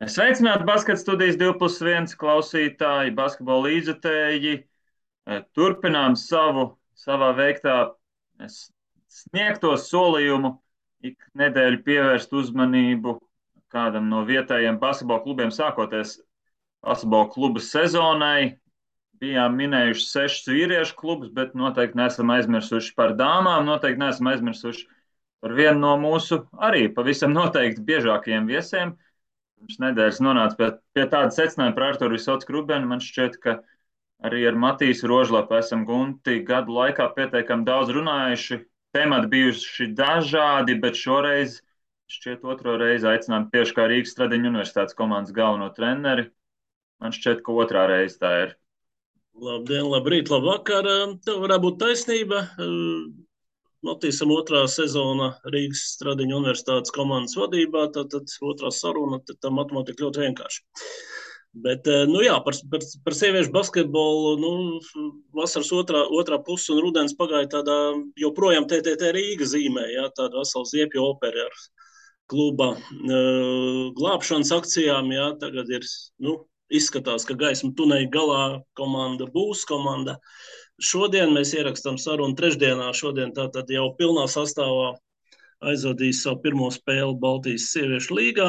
Sveicināti basketbola studijas 2+1 klausītāji, basketbola līdzjutēji. Turpinām savā veiktā sniegto solījumu ik nedēļu pievērst uzmanību kādam no vietējiem basketbola klubiem, sākoties basketbola kluba sezonai. Bijām minējuši 6 vīriešu klubus, bet noteikti neesam aizmirsuši par dāmām, noteikti neesam aizmirsuši par vienu no mūsu arī pavisam noteikti biežākajiem viesiem. Pirms nedēļas nonāca pie tāda secinājuma par Arturu Visotsku Rubenu. Man šķiet, ka arī ar Matīsu Rožlapu esam Gunti gadu laikā pietiekami daudz runājuši. Temati bijuši dažādi, bet šoreiz šķiet otro reizi aicinām tieši kā Rīgas Stradiņu universitātes komandas galveno treneri. Man šķiet, ka otrā reize tā ir. Labdien, labrīt, labvakar. Tev varētu būt taisnība. Matīsam otrā sezona Rīgas Stradiņu universitātes komandas vadībā, tad otrā saruna, tad tā matemātika ļoti vienkārši. Bet, par sieviešu basketbolu, vasaras otrā puse un rudens pagāja tādā joprojām TTT Rīga zīmē, tāda vesela ziepju opera ar kluba glābšanas akcijām, tagad ir, izskatās, ka gaisma tuneļa galā komanda būs komanda. Šodien mēs ierakstām sarunu trešdienā, šodien tātad jau pilnā sastāvā aizvadīs savu pirmo spēli Baltijas sieviešu līgā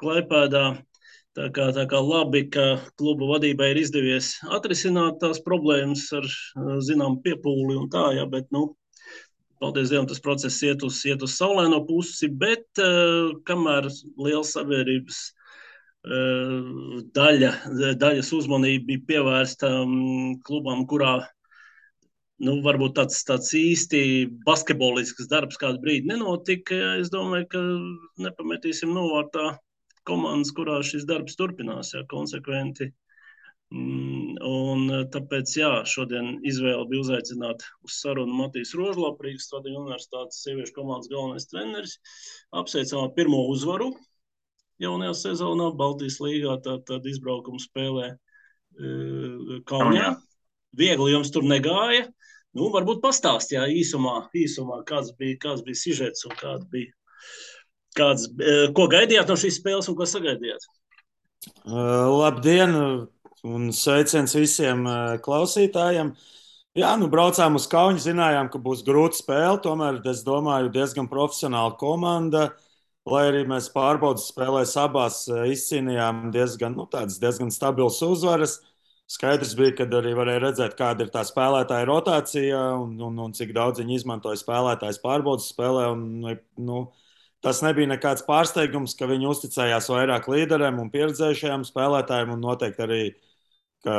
Klaipēdā. Tā kā labi, ka kluba vadībai ir izdevies atrisināt tās problēmas ar zinām piepūli un tā, bet, paldies Dievam, tas process iet uz saulaino pusi, bet kamēr liela sabiedrības daļas uzmanība bija pievērsta klubam, kurā varbūt tāds īsti basketbolisks darbs kādu brīdi nenotika. Es domāju, ka nepametīsim novārtā komandas, kurā šis darbs turpinās, konsekventi. Un tāpēc, šodien izvēle bija uzaicināt uz sarunu Matīsu Rožlapu, Rīgas Stradiņu universitātes sieviešu komandas galvenais treneris. Apsveicām pirmo uzvaru jaunajā sezonā Baltijas līgā, tad izbraukumu spēlē Kaunijā. Viegli jums tur negāja. Varbūt pastāst, īsumā, kāds bija sižets un ko gaidījāt no šīs spēles un ko sagaidījāt? Labdien un sveiciens visiem klausītājiem. Braucām uz Kauni, zinājām, ka būs grūta spēle, tomēr, es domāju, diezgan profesionāla komanda. Lai arī mēs pārbaudas spēlēs abās izcīnījām diezgan stabilas uzvaras. Skaidrs bija, kad arī varēja redzēt, kāda ir tā spēlētāja rotācija un cik daudz viņi izmantoja spēlētājs pārbaudas spēlē. Tas nebija nekāds pārsteigums, ka viņi uzticējās vairāk līderiem un pieredzējušajiem spēlētājiem un noteikti arī, ka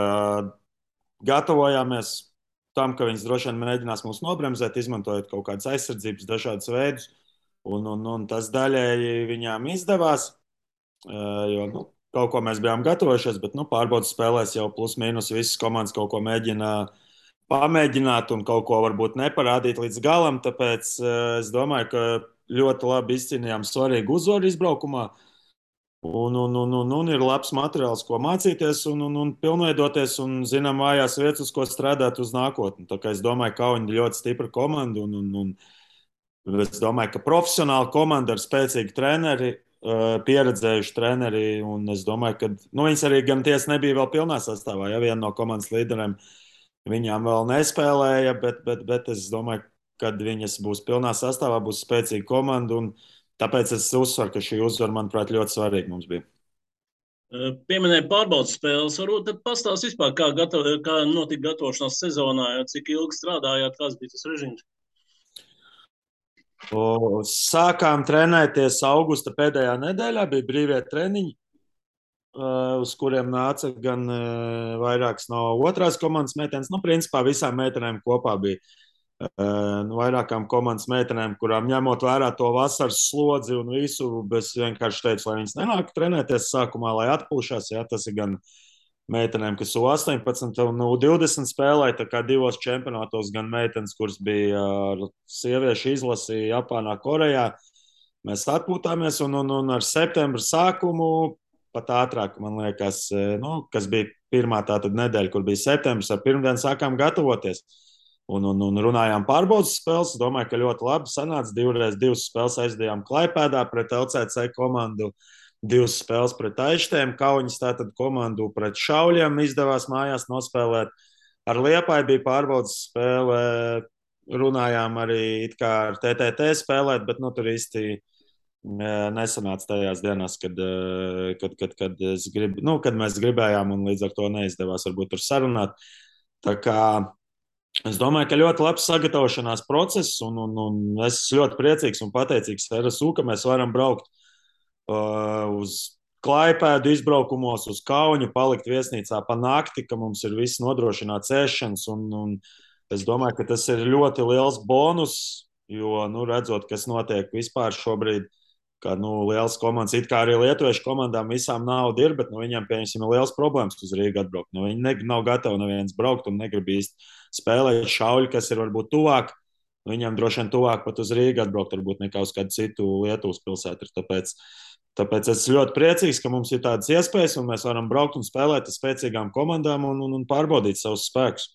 gatavojāmies tam, ka viņas droši vien mēģinās mūs nobremzēt, izmantojot kaut kādas aizsardzības dažādas veidus. Un tas daļēji viņām izdevās, jo kaut ko mēs bijām gatavojušies, bet pārbaudas spēlēs jau plus mīnus visas komandas kaut ko mēģina pamēģināt un kaut ko varbūt neparādīt līdz galam. Tāpēc es domāju, ka ļoti labi izcīnījām svarīgu uzvaru izbraukumā. Un ir labs materiāls, ko mācīties un pilnveidoties un zinām vājās vietas, uz ko strādāt uz nākotni. Tā kā es domāju, ka Kauni ir ļoti stipra komanda un es domāju, ka profesionāla komanda ar spēcīgu treneri, pieredzējuši treneri, un es domāju, ka viņas arī gan tiesa nebija vēl pilnā sastāvā, viena no komandas līderiem viņām vēl nespēlēja, bet es domāju, kad viņas būs pilnā sastāvā, būs spēcīga komanda, un tāpēc es uzsveru, ka šī uzvara, manuprāt, ļoti svarīga mums bija. Pieminēja pārbaudas spēles, varbūt tad pastāst vispār, kā notika gatavošanās sezonā, cik ilgi strādājāt, kāds bija tas režīms? Sākām trenēties augusta pēdējā nedēļā, bija brīvie treniņi, uz kuriem nāca gan vairākas no otrās komandas meitenes. Principā visām meitenēm kopā bija vairākām komandas meitenēm, kurām ņemot vērā to vasaras slodzi un visu, es vienkārši teicu, lai viņas nenāk trenēties sākumā, lai atpūšās. Tas ir gan meitenēm, kas U18 un U20 spēlēja, tā kā divos čempionātos, gan meitenes, kuras bija ar sieviešu izlasi Japānā, Korejā. Mēs atpūtāmies un ar septembra sākumu, pat ātrāk, man liekas, kas bija pirmā tātad nedēļa, kur bija septembris, ar pirmdienu sākām gatavoties. Un runājām pārbaudas spēles. Domāju, ka ļoti labi sanāca. Divas spēles aizdījām Klaipēdā pret LCC komandu. 2 spēles pret Aištēm, Kauņas tātad komandu pret Šauļiem izdevās mājās nospēlēt. Ar Liepāju bija pārbaudas spēle, runājām arī it kā ar TTT spēlēt, bet tur īsti nesanāca tajās dienās, kad mēs gribējām, un līdz ar to neizdevās varbūt tur sarunāt. Tā kā es domāju, ka ļoti labs sagatavošanās process, un es esmu ļoti priecīgs un pateicīgs RSU, ka mēs varam braukt uz Klaipēdu izbraukumos, uz Kauņu, palikt viesnīcā pa nakti, ka mums ir viss nodrošināts ēšanas, un es domāju, ka tas ir ļoti liels bonus, jo, redzot, kas notiek vispār šobrīd, ka liels komandas, it kā arī lietuviešu komandām visām nauda ir, bet viņiem, pieņemsim, ir liels problēmas uz Rīgu atbraukt. Viņi nav gatavi neviens braukt un negrib īsti spēlēt Šauļi, kas ir varbūt tuvāk. Viņiem droši vien tuvāk pat uz Rīgu atbraukt, varbūt nekā uz kādu citu Lietuvas pilsētu. Tāpēc es esmu ļoti priecīgs, ka mums ir tādas iespējas, un mēs varam braukt un spēlēt ar spēcīgām komandām un pārbaudīt savus spēkus.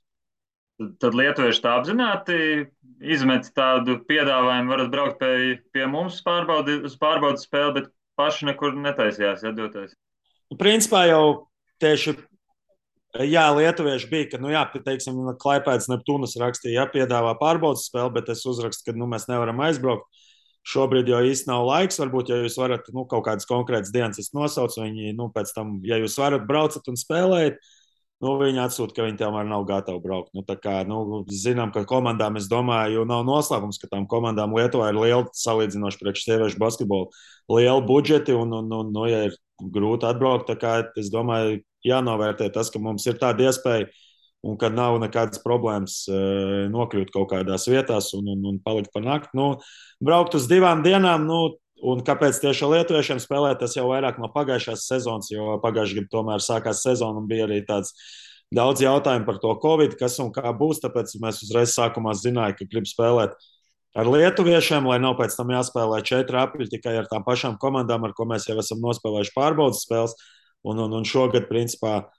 Tad lietuvieši tā apzināti izmet tādu piedāvājumu, varat braukt pie mums uz pārbaudas spēli, bet paši nekur netaisījās doties. Principā jau tieši lietuvieši bija, ka, teiksim, Klaipēdas Neptūnas rakstīja, piedāvā pārbaudas spēli, bet es uzrakstu, ka mēs nevaram aizbraukt. Šobrīd jau īsti nav laiks, varbūt, ja jūs varat kaut kādas konkrētas dienas nosaukt, viņi pēc tam, ja jūs varat braucat un spēlēt, viņi atsūta, ka viņi tomēr nav gatavi braukt. Zinām, ka komandām, es domāju, nav noslēpums, ka tām komandām Lietuvā ir liela, salīdzinoši priekš sieviešu basketbolu, liela budžeti, ja ir grūti atbraukt, es domāju, jānovērtē tas, ka mums ir tāda iespēja un ka nav nekādas problēmas nokļūt kaut kādās vietās un palikt pa nakti. Braukt uz 2 dienām, un kāpēc tieši ar lietuviešiem spēlēt, tas jau vairāk no pagājušās sezonas, jo pagājušajā gadā tomēr sākās sezona un bija arī tāds daudz jautājumu par to Covid, kas un kā būs, tāpēc mēs uzreiz sākumā zinājām, ka grib spēlēt ar lietuviešiem, lai nav pēc tam jāspēlē 4 apļi tikai ar tām pašām komandām, ar ko mēs jau esam nospēlējuši pārbaudas spēles, un šogad, principā,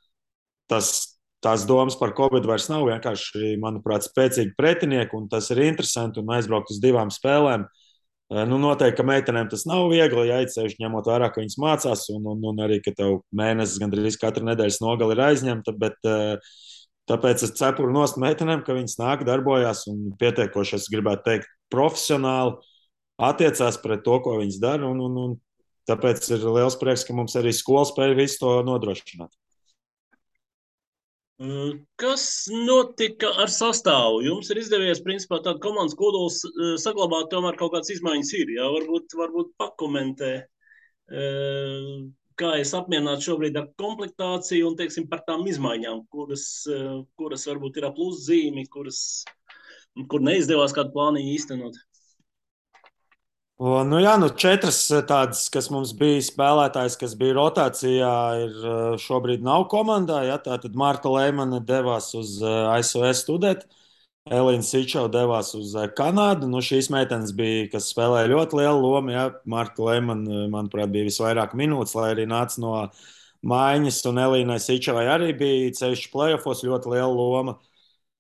tās domas par Covid vairs nav, vienkārši, manuprāt, spēcīgi pretinieki, un tas ir interesanti, un aizbraukt uz 2 spēlēm. Noteikti, ka meitenēm tas nav viegli, ceļš ņemot vērā, ka viņas mācās, un arī, ka tev mēnesis gandrīz katru nedēļas nogali ir aizņemta, bet tāpēc es cepuru nost meitenēm, ka viņas nāk, darbojās un pietiekoši, es gribētu teikt, profesionāli attiecās pret to, ko viņas dara, un tāpēc ir liels prieks, ka mums arī skola spēja visu to nodrošināt. Kas notika ar sastāvu? Jums ir izdevies, principā, tādu komandas kodolu saglabāt, tomēr kaut kādas izmaiņas ir. Jā? Varbūt pakomentē, kā es apmierināts šobrīd ar komplektāciju un, teiksim, par tām izmaiņām, kuras varbūt ir ap pluszīmi, kur neizdevās kādu plāniņu īstenot. 4 tādas, kas mums bija spēlētājs, kas bija rotācijā, šobrīd nav komandā. Tātad Marta Leimane devās uz ASV studēt, Elīna Sičova devās uz Kanādu. Šīs meitenes bija, kas spēlēja ļoti lielu lomu. Marta Leimane, manuprāt, bija visvairāk minūtes, lai arī nāca no maiņas, un Elīnai Sičovai arī bija ceļš play-offos ļoti liela loma.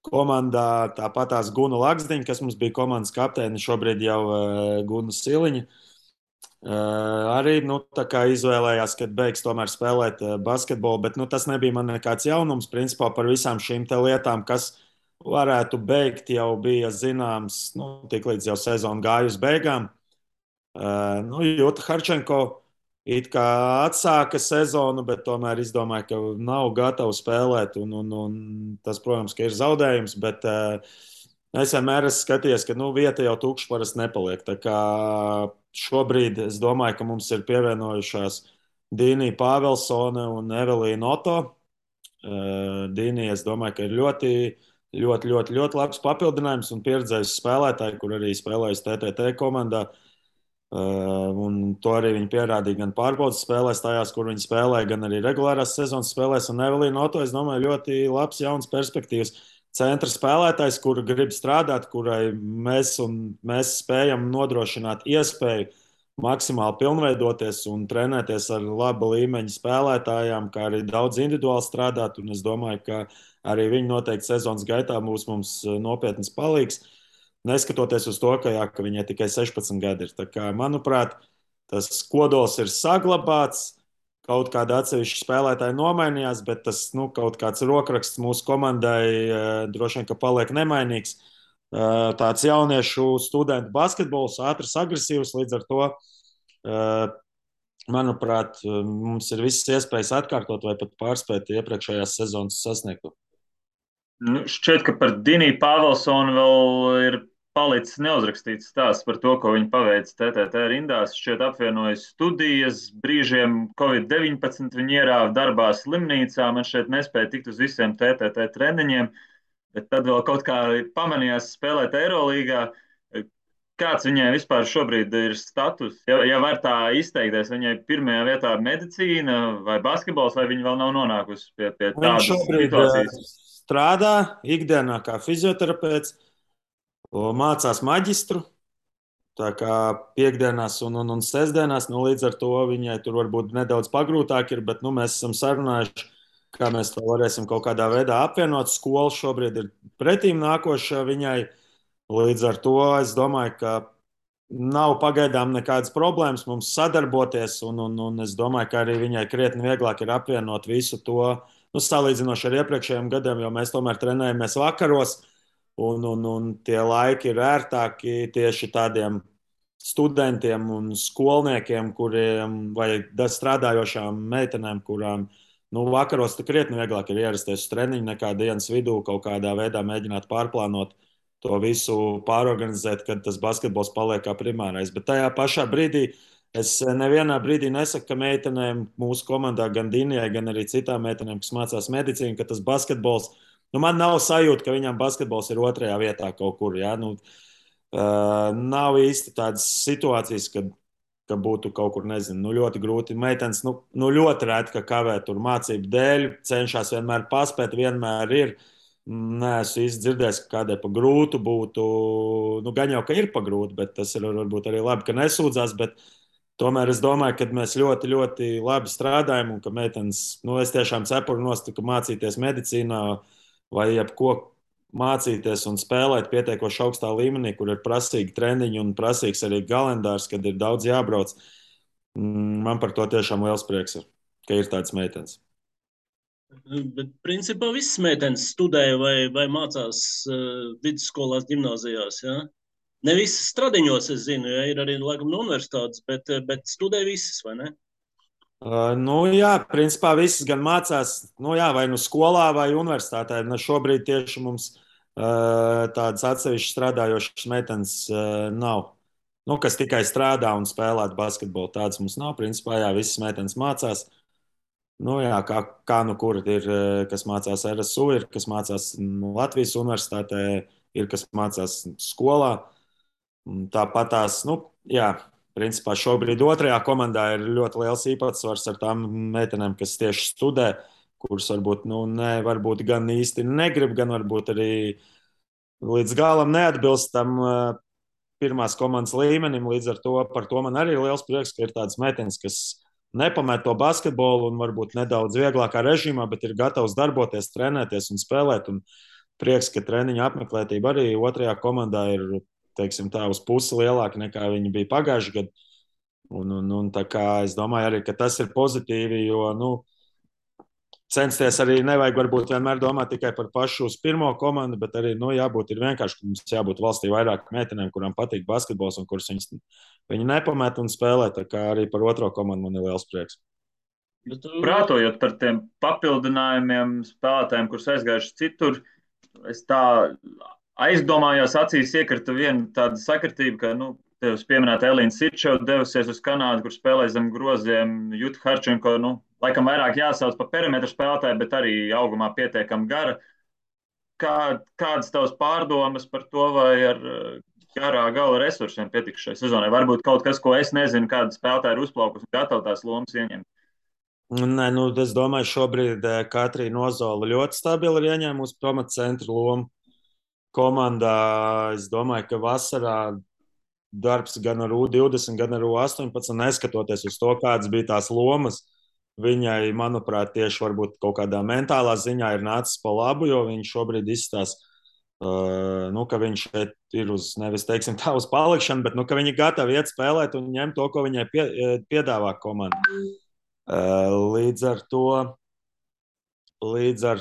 Komandā tāpatās Guna Laksdiņa, kas mums bija komandas kapteine, šobrīd jau Guna Siliņa. Arī izvēlējās, kad beigs tomēr spēlēt basketbolu, bet tas nebija man nekāds jaunums. Principā par visām šīm lietām, kas varētu beigt, jau bija zināms, tiklīdz jau sezona gāja uz beigām. Jūta Harčenko it kā atsāka sezonu, bet tomēr izdomāja, ka nav gatava spēlēt. Un tas, protams, ka ir zaudējums, bet es vienmēr esmu skatījies, ka vieta jau tukša parasti nepaliek. Tā kā šobrīd es domāju, ka mums ir pievienojušās Dīnija Pāvelsone un Evelīna Oto. Dīnija, es domāju, ka ir ļoti labs papildinājums un pieredzējis spēlētāji, kur arī spēlējusi TTT komandā. Un to arī viņi pierādīja gan pārbaudas spēlēs, tajās, kur viņi spēlēja, gan arī regulārās sezonas spēlēs. Un Evelīna Oto, es domāju, ļoti labs, jauns perspektīvas centra spēlētājs, kur grib strādāt, kurai mēs spējam nodrošināt iespēju maksimāli pilnveidoties un trenēties ar laba līmeņa spēlētājām, kā arī daudz individuāli strādāt. Un es domāju, ka arī viņi noteikti sezonas gaitā būs mums nopietnas palīgs. Neskatoties uz to, ka viņai tikai 16 gadi ir. Tā kā, manuprāt, tas kodols ir saglabāts. Kaut kāda atsevišķa spēlētāja nomainījās, bet tas kaut kāds rokraksts mūsu komandai droši vien, ka paliek nemainīgs. Tāds jauniešu studentu basketbols, ātrs, agresīvs, līdz ar to, manuprāt, mums ir visas iespējas atkārtot vai pat pārspēt iepriekšējās sezonas sasniegto. Šķiet, ka par Diniju Pāvelsonu vēl ir palicis neuzrakstīts stāsts par to, ko viņi paveica TTT rindās. Šķiet apvienojas studijas, brīžiem Covid-19 viņi ierāva darbā slimnīcā, man šķiet nespēja tikt uz visiem TTT treniņiem, bet tad vēl kaut kā pamanījās spēlēt Eirolīgā. Kāds viņai vispār šobrīd ir status? Ja var tā izteikties, viņai pirmajā vietā medicīna vai basketbols, vai viņa vēl nav nonākusi pie tādas situācijas? Strādā ikdienā kā fizioterapeits, mācās maģistru. Tā kā piekdienās un sestdienās, līdz ar to viņai tur varbūt nedaudz pagrūtāk ir, bet mēs esam sarunājuši, kā mēs to varēsim kaut kādā veidā apvienot. Skola šobrīd ir pretīm nākoša viņai. Līdz ar to es domāju, ka nav pagaidām nekādas problēmas mums sadarboties, un es domāju, ka arī viņai krietni vieglāk ir apvienot visu to. Salīdzinoši ar iepriekšējiem gadiem, jo mēs tomēr trenējamies vakaros, un tie laiki ir ērtāki tieši tādiem studentiem un skolniekiem, kuriem vai strādājošām meitenēm, kurām vakaros krietni vieglāk ir ierasties uz treniņu nekā dienas vidū, kaut kādā veidā mēģināt pārplānot to visu, pārorganizēt, kad tas basketbols paliek kā primārais. Bet tajā pašā brīdī es nevienā brīdī nesaku, ka meitenēm mūsu komandā, gan Dinijai, gan arī citām meitenēm, kas mācās medicīnu, ka tas basketbols, man nav sajūta, ka viņām basketbols ir otrajā vietā kaut kur. Ja? Nav īsti tādas situācijas, ka būtu kaut kur, nezinu, ļoti grūti. Meitenes ļoti reti, ka kavē tur mācību dēļ, cenšas vienmēr paspēt, vienmēr ir. Nē, es īsti dzirdēju, ka kādai pa grūtu būtu, gan jau, ka ir pa grūti, bet tas ir varbūt arī labi, ka nesūdzās, bet tomēr es domāju, ka mēs ļoti, ļoti labi strādājam un ka meitenes, es tiešām cepuru nost, ka mācīties medicīnā vai jebko mācīties un spēlēt pietiekoši augstā līmenī, kur ir prasīgi treniņi un prasīgs arī kalendārs, kad ir daudz jābrauc. Man par to tiešām liels prieks ir, ka ir tādas meitenes. Bet principā visas meitenes studē vai mācās vidusskolās, gimnāzijās, ja? Ne visas Stradiņos, es zinu, ja ir arī laikam no universitātes, bet studē visas, vai ne? Jā, principā visas gan mācās, vai skolā vai universitātē. Šobrīd tieši mums tādas atsevišķas strādājošas meitenes nav. Kas tikai strādā un spēlē basketbolu, tādas mums nav. Principā, jā, visas meitenes mācās. Kā kur ir, kas mācās RSU, ir kas mācās Latvijas universitātē, ir kas mācās skolā. Tāpat tās, principā šobrīd otrajā komandā ir ļoti liels īpatsvars ar tām meitenēm, kas tieši studē, kuras varbūt gan īsti negrib, gan varbūt arī līdz galam neatbilst tam pirmās komandas līmenim. Līdz ar to par to man arī ir liels prieks, ka ir tādas meitenes, kas nepamet to basketbolu un varbūt nedaudz vieglākā režīmā, bet ir gatavs darboties, trenēties un spēlēt. Un prieks, ka treniņa apmeklētība arī otrajā komandā ir, teiksim tā, uz pusi lielāka nekā viņi bija pagājušajā gadā. Un tā kā es domāju arī, ka tas ir pozitīvi, jo, censties arī nevajag varbūt vienmēr domāt tikai par pašu uz pirmo komandu, bet arī, jābūt ir vienkārši, ka mums jābūt valstī vairāk meitenēm, kurām patīk basketbols un kuras viņi nepamet un spēlē, tā kā arī par otro komandu man ir liels prieks. Prātojot par tiem papildinājumiem spēlētājiem, kurus aizgājuši citur, es tā aizdomājos, acīs iekrita viena tāda sakritība, ka, tevis pieminēta Elīna Sirčeva devusies uz Kanādu, kur spēlēja zem groziem. Juta Harčenko, laikam vairāk jāsauc par perimetru spēlētāju, bet arī augumā pietiekami gara. Kādas tavas pārdomas par to, vai ar garā gala resursiem pietiks šai sezonai? Varbūt kaut kas, ko es nezinu, kāda spēlētāja ir uzplaukusi un gatava tās lomas ieņemt. Nē, es domāju, šobrīd Katrīna Ozola ļoti stabili ir ieņēmusi pamatcentru lomu komandā. Es domāju, ka vasarā darbs gan ar U20, gan ar U18, neskatoties uz to, kādas bija tās lomas, viņai, manuprāt, tieši varbūt kaut kādā mentālā ziņā ir nācis pa labu, jo viņš šobrīd izstāsta Ka viņš šeit ir uz, nevis teiksim tā, uz palikšanu, bet ka viņi ir gatavi iet spēlēt un ņemt to, ko viņai piedāvā komanda. Līdz ar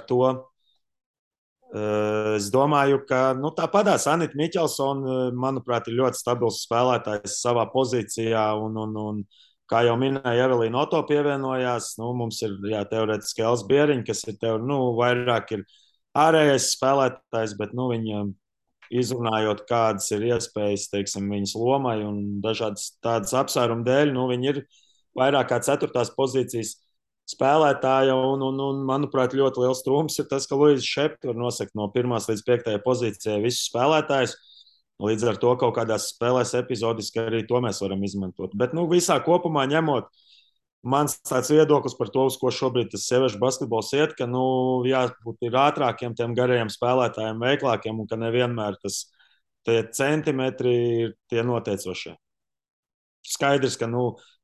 to es domāju, ka tāpatās Anita Miķelsona, manuprāt, ir ļoti stabils spēlētājs savā pozīcijā. Un, kā jau minēja, Evelīna Oto pievienojās. Mums ir teorētiski Els Bieriņš, kas ir vairāk ir ārējais spēlētājs, bet viņa izrunājot, kādas ir iespējas, teiksim, viņas lomai un dažādas tādas apsvērumu dēļ, viņi ir vairāk kā 4. pozīcijas spēlētāja. Un, manuprāt, ļoti liels trūkums ir tas, ka Luīza Šepka var nosakt no 1. līdz 5. pozīcijai visus spēlētājus. Līdz ar to kaut kādās spēlēs epizodiski arī to mēs varam izmantot. Bet visā kopumā ņemot, mans tāds viedoklis par to, uz ko šobrīd tas sieviešu basketbols iet, ka jābūt ir ātrākiem, tiem garajiem spēlētājiem, veiklākiem, un ka nevienmēr tie centimetri ir tie noteicošie. Skaidrs, ka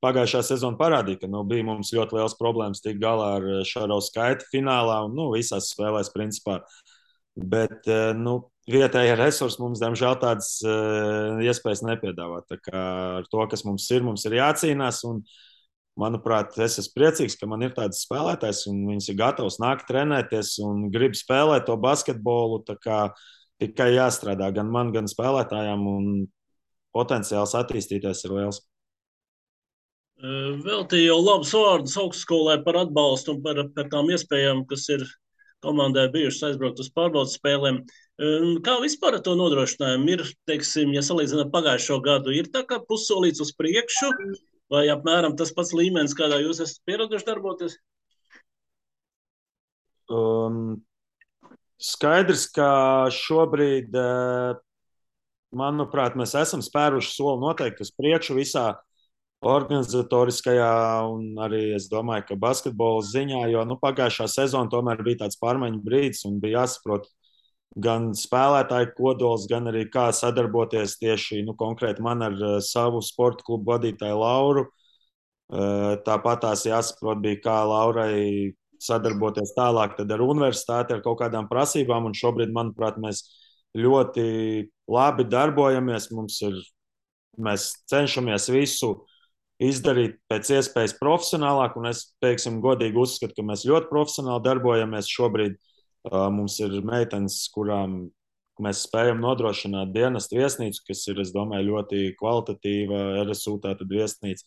pagājušā sezona parādīja, ka bija mums ļoti liels problēmas tikt galā ar Šarovu skaitu finālā un visās spēlēs principā. Bet vietējie resursi mums, diemžēl, tādas iespējas nepiedāvā. Tā kā ar to, kas mums ir jācīnās. Un, manuprāt, es esmu priecīgs, ka man ir tāds spēlētājs, un viņš ir gatavs nākt trenēties un grib spēlēt to basketbolu. Tikai jāstrādā gan man, gan spēlētājiem, un potenciāls attīstīties ir liels. Veltīju jau labus vārdus augstskolai par atbalstu un par tām iespējām, kas ir komandai bijušas aizbraukt uz pārbaudas spēlēm. Kā vispār ar to nodrošinājumu ir, teiksim, ja salīdzinām pagājušo gadu, ir tā kā pussolīts uz priekšu, vai apmēram tas pats līmenis, kādā jūs esat pieraduši darboties? Skaidrs, ka šobrīd, manuprāt, mēs esam spēruši soli noteikti uz priekšu visā organizatoriskajā un arī, es domāju, ka basketbola ziņā, jo pagājušā sezona tomēr bija tāds pārmaiņu brīdis un bija jāsaprot gan spēlētāju kodols, gan arī kā sadarboties tieši konkrēti man ar savu sporta klubu vadītāju Lauru. Tāpat tās jāsaprot bija, kā Laurai sadarboties tālāk ar universitāti, ar kaut kādām prasībām, un šobrīd, manuprāt, mēs ļoti labi darbojamies. Mēs cenšamies visu izdarīt pēc iespējas profesionālāk, un es, teiksim, godīgi uzskatu, ka mēs ļoti profesionāli darbojamies. Šobrīd mums ir meitenes, kurām mēs spējam nodrošināt dienestu viesnīcu, kas ir, es domāju, ļoti kvalitatīva RSU tātad viesnīca.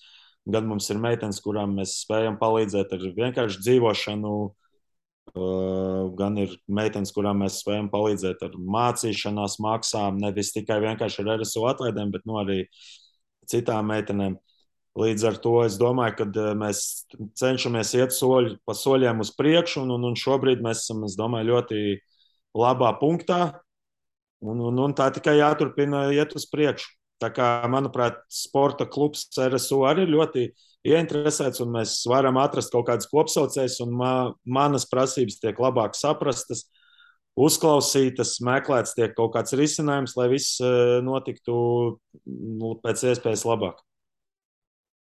Gan mums ir meitenes, kurām mēs spējam palīdzēt ar vienkārši dzīvošanu, gan ir meitenes, kurām mēs spējam palīdzēt ar mācīšanās maksām, nevis tikai vienkārši ar RSU atlaidēm, bet arī citām meitenēm. Līdz ar to es domāju, ka mēs cenšamies iet pa soļiem uz priekšu, un šobrīd mēs esam, es domāju, ļoti labā punktā, un tā tikai jāturpina iet uz priekšu. Tā kā, manuprāt, sporta klubs RSU arī ir ļoti ieinteresēts, un mēs varam atrast kaut kādas kopsaucējas, un manas prasības tiek labāk saprastas, uzklausītas, meklēts tiek kaut kāds risinājums, lai viss notiktu pēc iespējas labāk.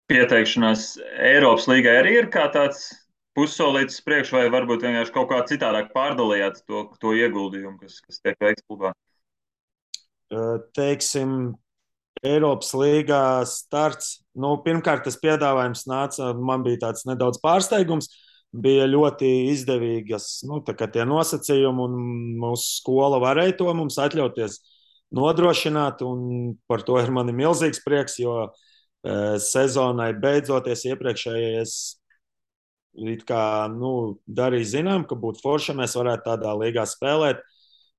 Pieteikšanās Eiropas līgai arī ir kā tāds pussolītis priekš, vai varbūt vienkārši kaut kā citādāk pārdalījāt to ieguldījumu, kas tiek veikts klubā? Teiksim, Eiropas līgā starts. Pirmkārt, tas piedāvājums nāca, man bija tāds nedaudz pārsteigums. Bija ļoti izdevīgas tie nosacījumi, un mūsu skola varēja to mums atļauties nodrošināt. Par to ir man milzīgs prieks, jo sezonai beidzoties iepriekšējais darīja zinām, ka būtu forši, ja mēs varētu tādā līgā spēlēt.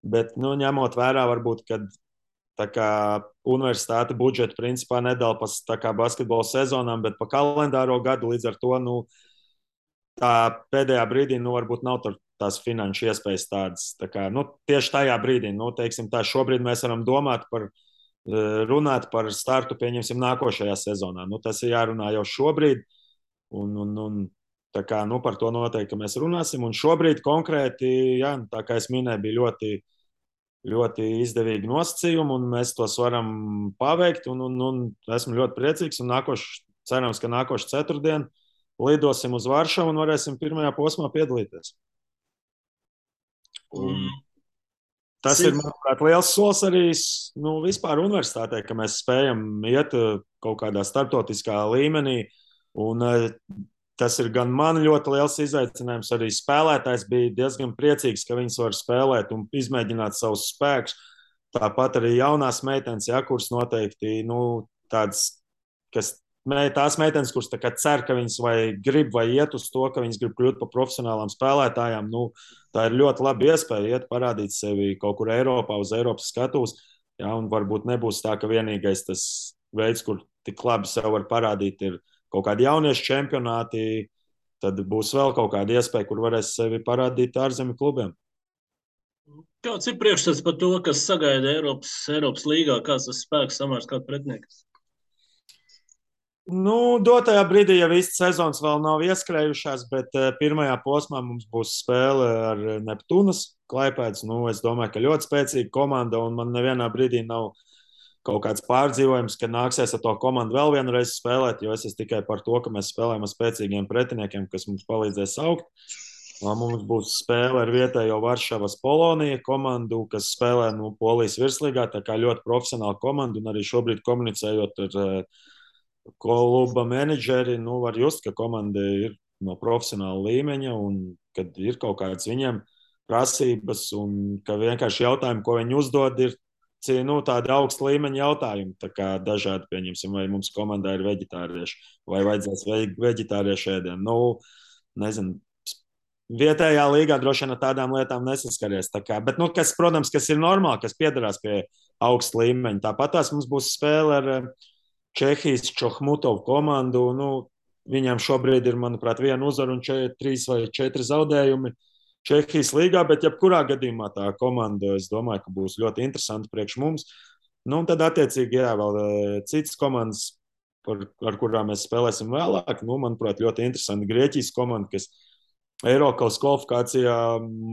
Bet ņemot vērā, varbūt, kad universitāte budžetu principā nedala pa basketbola sezonām, bet pa kalendāro gadu. Līdz ar to tā pēdējā brīdī varbūt nav tās finanšu iespējas tādas. Tieši tajā brīdī, teiksim tā, šobrīd mēs varam runāt par startu, pieņemsim, nākošajā sezonā. Tas ir jārunā jau šobrīd, un par to noteikti mēs runāsim. Un šobrīd konkrēti, tā kā es minēju, bija ļoti ļoti izdevīgi nosacījumi, un mēs tos varam paveikt. Esmu ļoti priecīgs. Cerams, ka nākošu ceturtdienu lidosim uz Varšavu un varēsim pirmajā posmā piedalīties. Tas ir, manuprāt, liels solis arī vispār universitātē, ka mēs spējam iet kaut kādā starptautiskā līmenī. Un, tas ir gan man ļoti liels izaicinājums. Arī spēlētājs bija diezgan priecīgs, ka viņas var spēlēt un izmēģināt savus spēkus. Tāpat arī jaunās meitenes, ja, kuras noteikti tādas, tās meitenes, kuras cer, ka viņas vai grib vai iet uz to, ka viņas grib kļūt par profesionālām spēlētājām, tā ir ļoti laba iespēja iet parādīt sevi kaut kur Eiropā, uz Eiropas skatuves. Ja, un varbūt nebūs tā, ka vienīgais tas veids, kur tik labi sev var parādīt, ir kaut kādi jauniešu čempionāti. Tad būs vēl kaut kāda iespēja, kur varēs sevi parādīt ārzemju klubiem. Kāds ir priekšstats par to, kas sagaida Eiropas līgā? Kāds tas spēks samērs kādu pretinieku? Dotajā brīdī jau īsti sezonas vēl nav ieskrējušās, bet pirmajā posmā mums būs spēle ar Neptūnas Klaipēdas. Es domāju, ka ļoti spēcīga komanda, un man nevienā brīdī nav kaut kāds pārdzīvojums, ka nāksies ar to komandu vēl vienreiz spēlēt, jo es esmu tikai par to, ka mēs spēlējam ar spēcīgiem pretiniekiem, kas mums palīdzēs augt. Mums būs spēle ar vietējo Varšavas Polonija komandu, kas spēlē Polijas virslīgā, tā kā ļoti profesionāla komanda, un arī šobrīd komunicējot ar kluba menedžeri, var just, ka komanda ir no profesionāla līmeņa un kad ir kaut kādas viņiem prasības un ka vienkārši jautājumi, ko viņi uzdod, ir tādi augsta līmeņa jautājumi. Tā kā dažādi, pieņemsim, vai mums komandā ir veģetārieši vai vajadzēs veģetāriešu ēdienu. Nezinu, vietējā līgā droši vien ar tādām lietām nesaskaries. Bet, protams, kas ir normāli, kas piedarās pie augsta līmeņa. Tāpat tās mums būs spēle ar Čehijas Čohmutovu komandu. Viņiem šobrīd ir, manuprāt, 1 uzvara un 3 vai 4 zaudējumi Čehijas līgā, bet jebkurā gadījumā tā komanda, es domāju, ka būs ļoti interesanti priekš mums. Tad, attiecīgi, vēl citas komandas, ar kurām mēs spēlēsim vēlāk. Manuprāt, ļoti interesanti Grieķijas komanda, kas Eirokaus kvalifikācijā,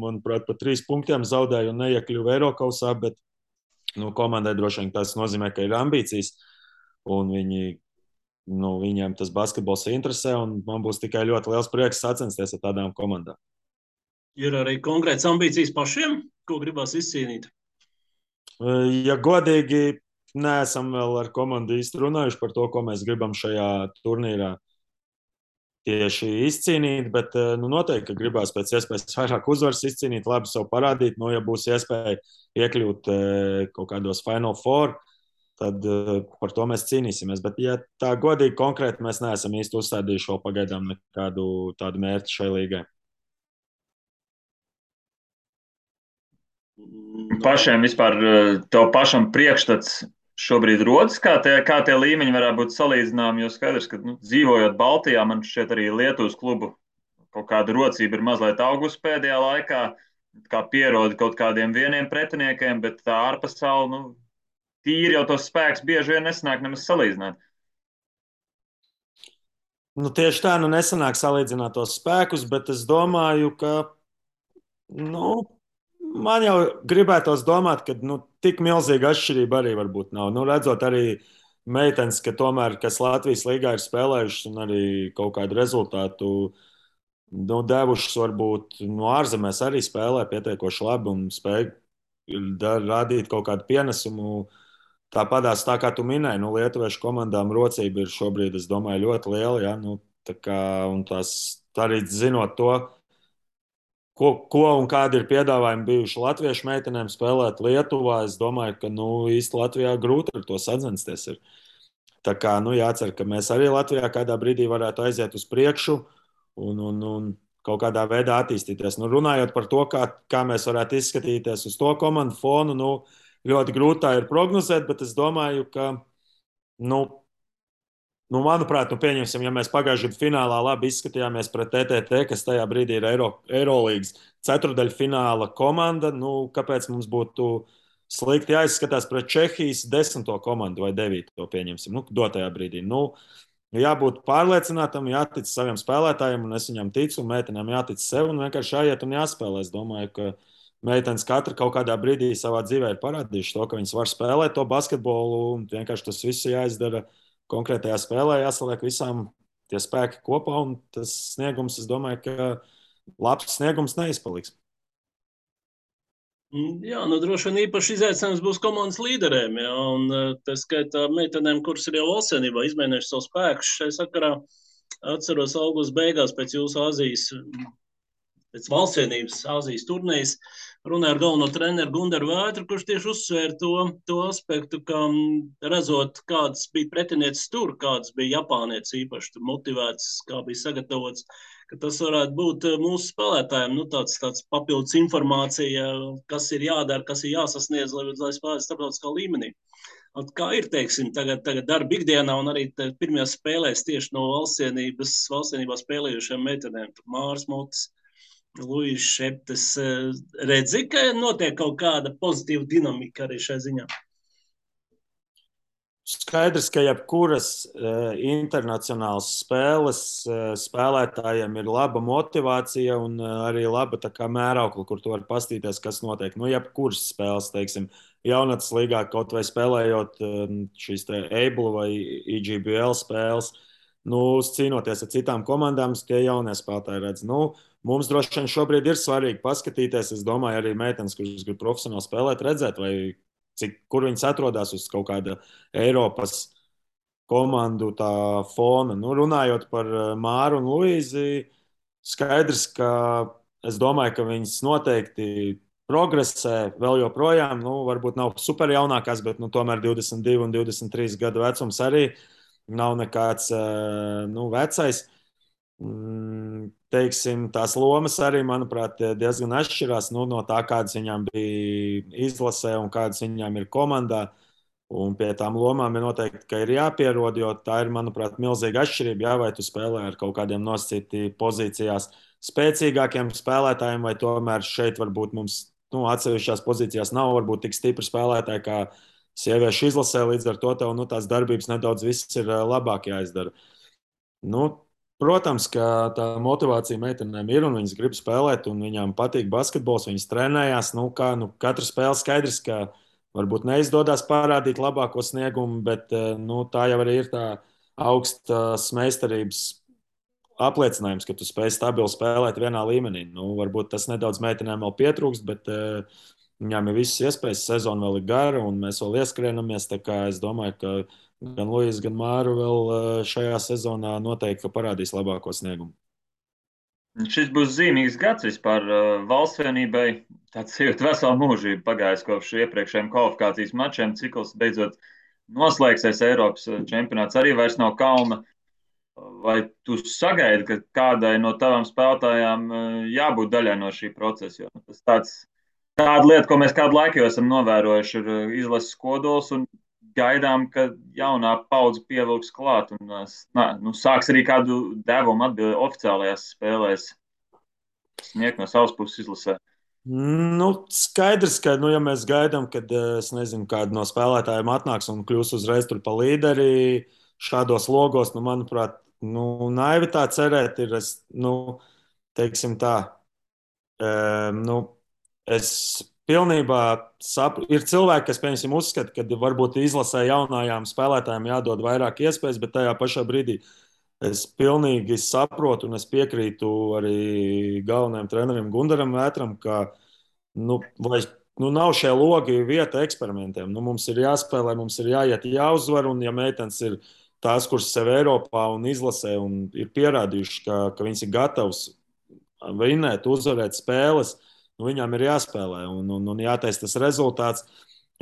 manuprāt, pa 3 punktiem zaudēja un neiekļuva Eirokausā, bet komandai droši vien tas nozīmē, ka ir ambīcijas un viņiem tas basketbols interesē, un man būs tikai ļoti liels prieks sacensties ar tādām komandām. Ir arī konkrēts ambīcijas pašiem, ko gribās izcīnīt? Ja godīgi, neesam vēl ar komandu īsti runājuši par to, ko mēs gribam šajā turnīrā tieši izcīnīt, bet noteikti, ka gribās pēc iespējas vairāk uzvaras izcīnīt, labi sev parādīt. Ja būs iespēja iekļūt kaut kādos Final Four, tad par to mēs cīnīsimies. Bet, ja tā godīgi konkrēti, mēs neesam īsti uzstādījuši vēl pagaidām nekādu tādu mērķi šai līgai. Pašiem vispār tev pašam priekšstats šobrīd rodas, kā tie līmeņi varētu būt salīdzināmi, jo skaidrs, ka dzīvojot Baltijā, man šķiet arī Lietuvas klubu kaut kāda rocība ir mazliet augusi pēdējā laikā, kā pieroda kaut kādiem vieniem pretiniekiem, bet tā ārpasaule, tīri jau tos spēks bieži vien nesanāk nemaz salīdzināt. Tieši tā, nesanāk salīdzināt tos spēkus, bet es domāju, ka man jau gribētos domāt, ka tik milzīga atšķirība arī varbūt nav. Redzot arī meitenes, kas Latvijas līgā ir spēlējušas un arī kaut kādu rezultātu devušas, varbūt ārzemēs arī spēlē pietiekoši labi un spēj radīt kaut kādu pienesumu. Tāpatās, tā kā tu minēji, lietuviešu komandām rocība ir šobrīd, es domāju, ļoti liela. Ja? Un tās arī zinot to, ko un kādi ir piedāvājumi bijuši latviešu meitenēm spēlēt Lietuvā, es domāju, ka īsti Latvijā grūti ar to sacensties. Tā kā jācer, ka mēs arī Latvijā kādā brīdī varētu aiziet uz priekšu un kaut kādā veidā attīstīties. Runājot par to, kā mēs varētu izskatīties uz to komandu fonu, ļoti grūti tā ir prognozēt, bet es domāju, ka manuprāt, pieņemsim, ja mēs pagājušajā gadā finālā labi izskatījāmies pret TTT, kas tajā brīdī ir Eirolīgas ceturdaļfināla komanda, kāpēc mums būtu slikti jāizskatās pret Čehijas 10. komandu vai 9. pieņemsim, dotajā brīdī. Jābūt pārliecinātam, jātic saviem spēlētājiem, un es viņam ticu, un meitenēm jātic sev, un vienkārši jāiet un jāspēlē. Es domāju, ka meitenes katra kaut kādā brīdī savā dzīvē ir parādījuši to, ka viņas var spēlēt to basketbolu, un vienkārši tas viss jāizdara konkrētajā spēlē, jāsaliek visām tie spēki kopā, un tas sniegums, es domāju, ka labs sniegums neizpaliks. Jā, nu droši vien īpaši izaicinājums būs komandas līderiem, jā, un tā skaitā meitenēm, kuras ir jau valstsienībā izmēģinājuši savu spēku šai sakarā. Atceros augusta beigās pēc jūsu Azijas, pēc valstsienības Azijas turnīras, runāju ar galveno treneru Gundaru Vētru, kurš tieši uzsvēra to aspektu, ka redzot, kādas bija pretinieces tur, kādas bija Japānietes īpaši motivētas, kā bija sagatavots, ka tas varētu būt mūsu spēlētājiem tāds papildus informācija, kas ir jādara, kas ir jāsasniedz, lai spēlētu starptautiskā līmenī. Kā ir, teiksim, tagad darba ikdienā un arī pirmajās spēlēs tieši no valstsienībā spēlējušiem meitenēm, Māras Motis, Luīša Šeptes, redzi, ka notiek kaut kāda pozitīva dinamika arī šai ziņā? Skaidrs, ka jebkuras internacionālas spēles spēlētājiem ir laba motivācija un arī laba mēraukla, kur tu vari pastīties, kas notiek. Nu, jebkuras spēles, teiksim, jaunatnes līgā, kaut vai spēlējot šīs Able vai EGBL spēles, cīnoties ar citām komandām, tie jaunie spēlētāji redz. Mums droši vien šobrīd ir svarīgi paskatīties. Es domāju, arī meitenes, kuras grib profesionāli spēlēt, redzēt, kur viņas atrodas uz kaut kāda Eiropas komandu fona. Runājot par Māru un Luīzi, skaidrs, ka es domāju, ka viņas noteikti progresē vēl joprojām. Varbūt nav super jaunākās, bet tomēr 22 un 23 gadu vecums arī nav nekāds vecais. Teiksim, tās lomas arī, manuprāt, diezgan atšķirās no tā, kādas viņām bija izlasē un kādas viņām ir komandā. Un pie tām lomām ir noteikti, ka ir jāpierod, jo tā ir, manuprāt, milzīga atšķirība. Jā, vai tu spēlē ar kaut kādiem nosacītiem pozīcijās spēcīgākiem spēlētājiem, vai tomēr šeit varbūt mums atsevišķās pozīcijās nav varbūt tik stipri spēlētāji kā sieviešu izlasē. Līdz ar to tev tās darbības nedaudz viss ir labāk jāizdara. Protams, ka tā motivācija meitenēm ir un viņas grib spēlēt, un viņām patīk basketbols, viņas trenējās. Katra spēle skaidrs, ka varbūt neizdodas parādīt labāko sniegumu, bet tā jau arī ir tā augstas meistarības apliecinājums, ka tu spēj stabili spēlēt vienā līmenī. Varbūt tas nedaudz meitenēm vēl pietrūkst, bet viņām ir visas iespējas, sezona vēl ir gara un mēs vēl ieskrienamies. Es domāju, ka gan Luīsa, gan Māra vēl šajā sezonā noteikti parādīs labāko sniegumu. Šis būs zīmīgs gads vispār valstsvienībai. Tāds ir vesela mūžība pagājis kopš iepriekšējiem kvalifikācijas mačiem. Cikls beidzot noslēgsies, Eiropas čempionāts arī vairs nav kauna. Vai tu sagaidi, ka kādai no tavām spēlētājām jābūt daļai no šī procesa? Jo tas tāda lieta, ko mēs kādu laiku jau esam novērojuši, ir izlases kodols un gaidām, ka jaunā paudze pievilks klāt un sāks arī kādu devumu oficiālajās spēlēs sniegt no savas puses izlasē. Skaidrs, ka, ja mēs gaidām, kad, es nezinu, kāda no spēlētājiem atnāks un kļūs uzreiz tur pa līderi šādos logos, manuprāt, naivi tā cerēt ir, teiksim tā, es pilnībā saprotu. Ir cilvēki, kas, piemēram, uzskata, ka varbūt izlasē jaunajām spēlētājiem jādod vairāk iespējas, bet tajā pašā brīdī es pilnīgi saprotu un es piekrītu arī galvenajam trenerim Gundaram Vētram, ka nav šie logi vieta eksperimentiem. Mums ir jāspēlē, mums ir jāiet, jāuzvar, un ja meitenes ir tās, kuras sev Eiropā un izlasē un ir pierādījuši, ka viņas ir gatavas vinēt, uzvarēt spēles, viņām ir jāspēlē un jātaisa tas rezultāts.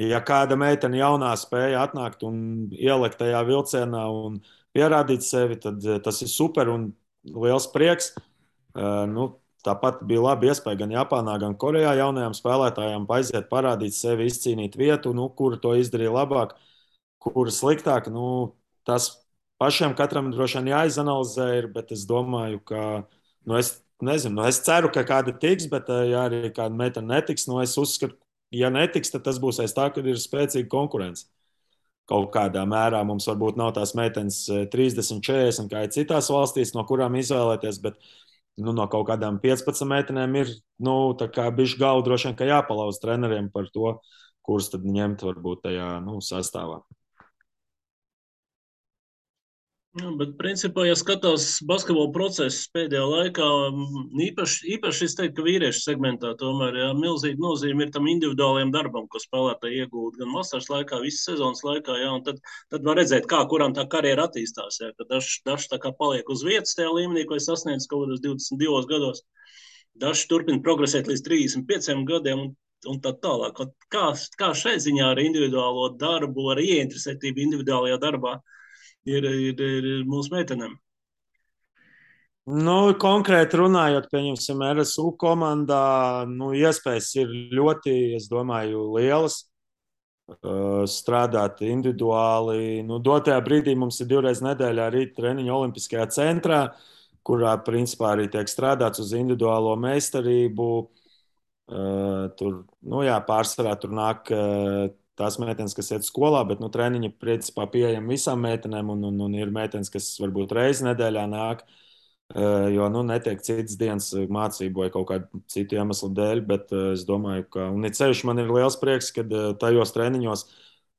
Ja kāda meitene jaunā spēja atnākt un ielikt tajā vilcienā un pierādīt sevi, tad tas ir super un liels prieks. Tāpat bija laba iespēja gan Japānā, gan Korejā jaunajām spēlētājām aiziet, parādīt sevi, izcīnīt vietu, kura to izdarīja labāk, kura sliktāk. Tas pašiem katram droši vien jāizanalizē, bet es domāju, ka es nezinu, es ceru, ka kāda tiks, bet ja arī kāda meitene netiks, es uzskatu, ja netiks, tad tas būs aiz tā, ka ir spēcīga konkurence. Kaut kādā mērā mums varbūt nav tās meitenes 30, 40, kā ir citās valstīs, no kurām izvēlēties, bet no kaut kādām 15 meitenēm ir bišķi galva droši vien, ka jāpalauz treneriem par to, kurus tad ņemt varbūt tajā sastāvā. Bet, principā, ja skatās basketbola procesu pēdējā laikā, īpaši es teiktu, ka vīriešu segmentā tomēr milzīga nozīme ir tam individuālajam darbam, ko spēlētāji iegūst gan vasaras laikā, visas sezonas laikā. Jā, tad var redzēt, kuram tā karjera attīstās. Jā, ka dažs tā kā paliek uz vietas tajā līmenī, ko es sasniedzu kaut kādos 22 gados. Dažs turpina progresēt līdz 35 gadiem. Un tā tālāk. Kā šai ziņā ar individuālo darbu, ar ieinteresētību individuālajā darbā ir mūsu meitenēm. Nu, konkrēti runājot, pieņemsim, RSU komandā, iespējas ir ļoti, es domāju, lielas. Strādāt individuāli. Dotajā brīdī mums ir 2 reizes nedēļā rīta treniņa Olimpiskajā centrā, kurā principā arī tiek strādāts uz individuālo meistarību. Tur, pārsvarā tur nāk tās meitenes, kas iet skolā, bet treniņi principā pieejami visām meitenēm, un ir meitenes, kas varbūt reizi nedēļā nāk, jo netiek citas dienas mācību vai kaut kādu citu iemeslu dēļ, bet es domāju, ka, un it sevišķi man ir liels prieks, ka tajos treniņos,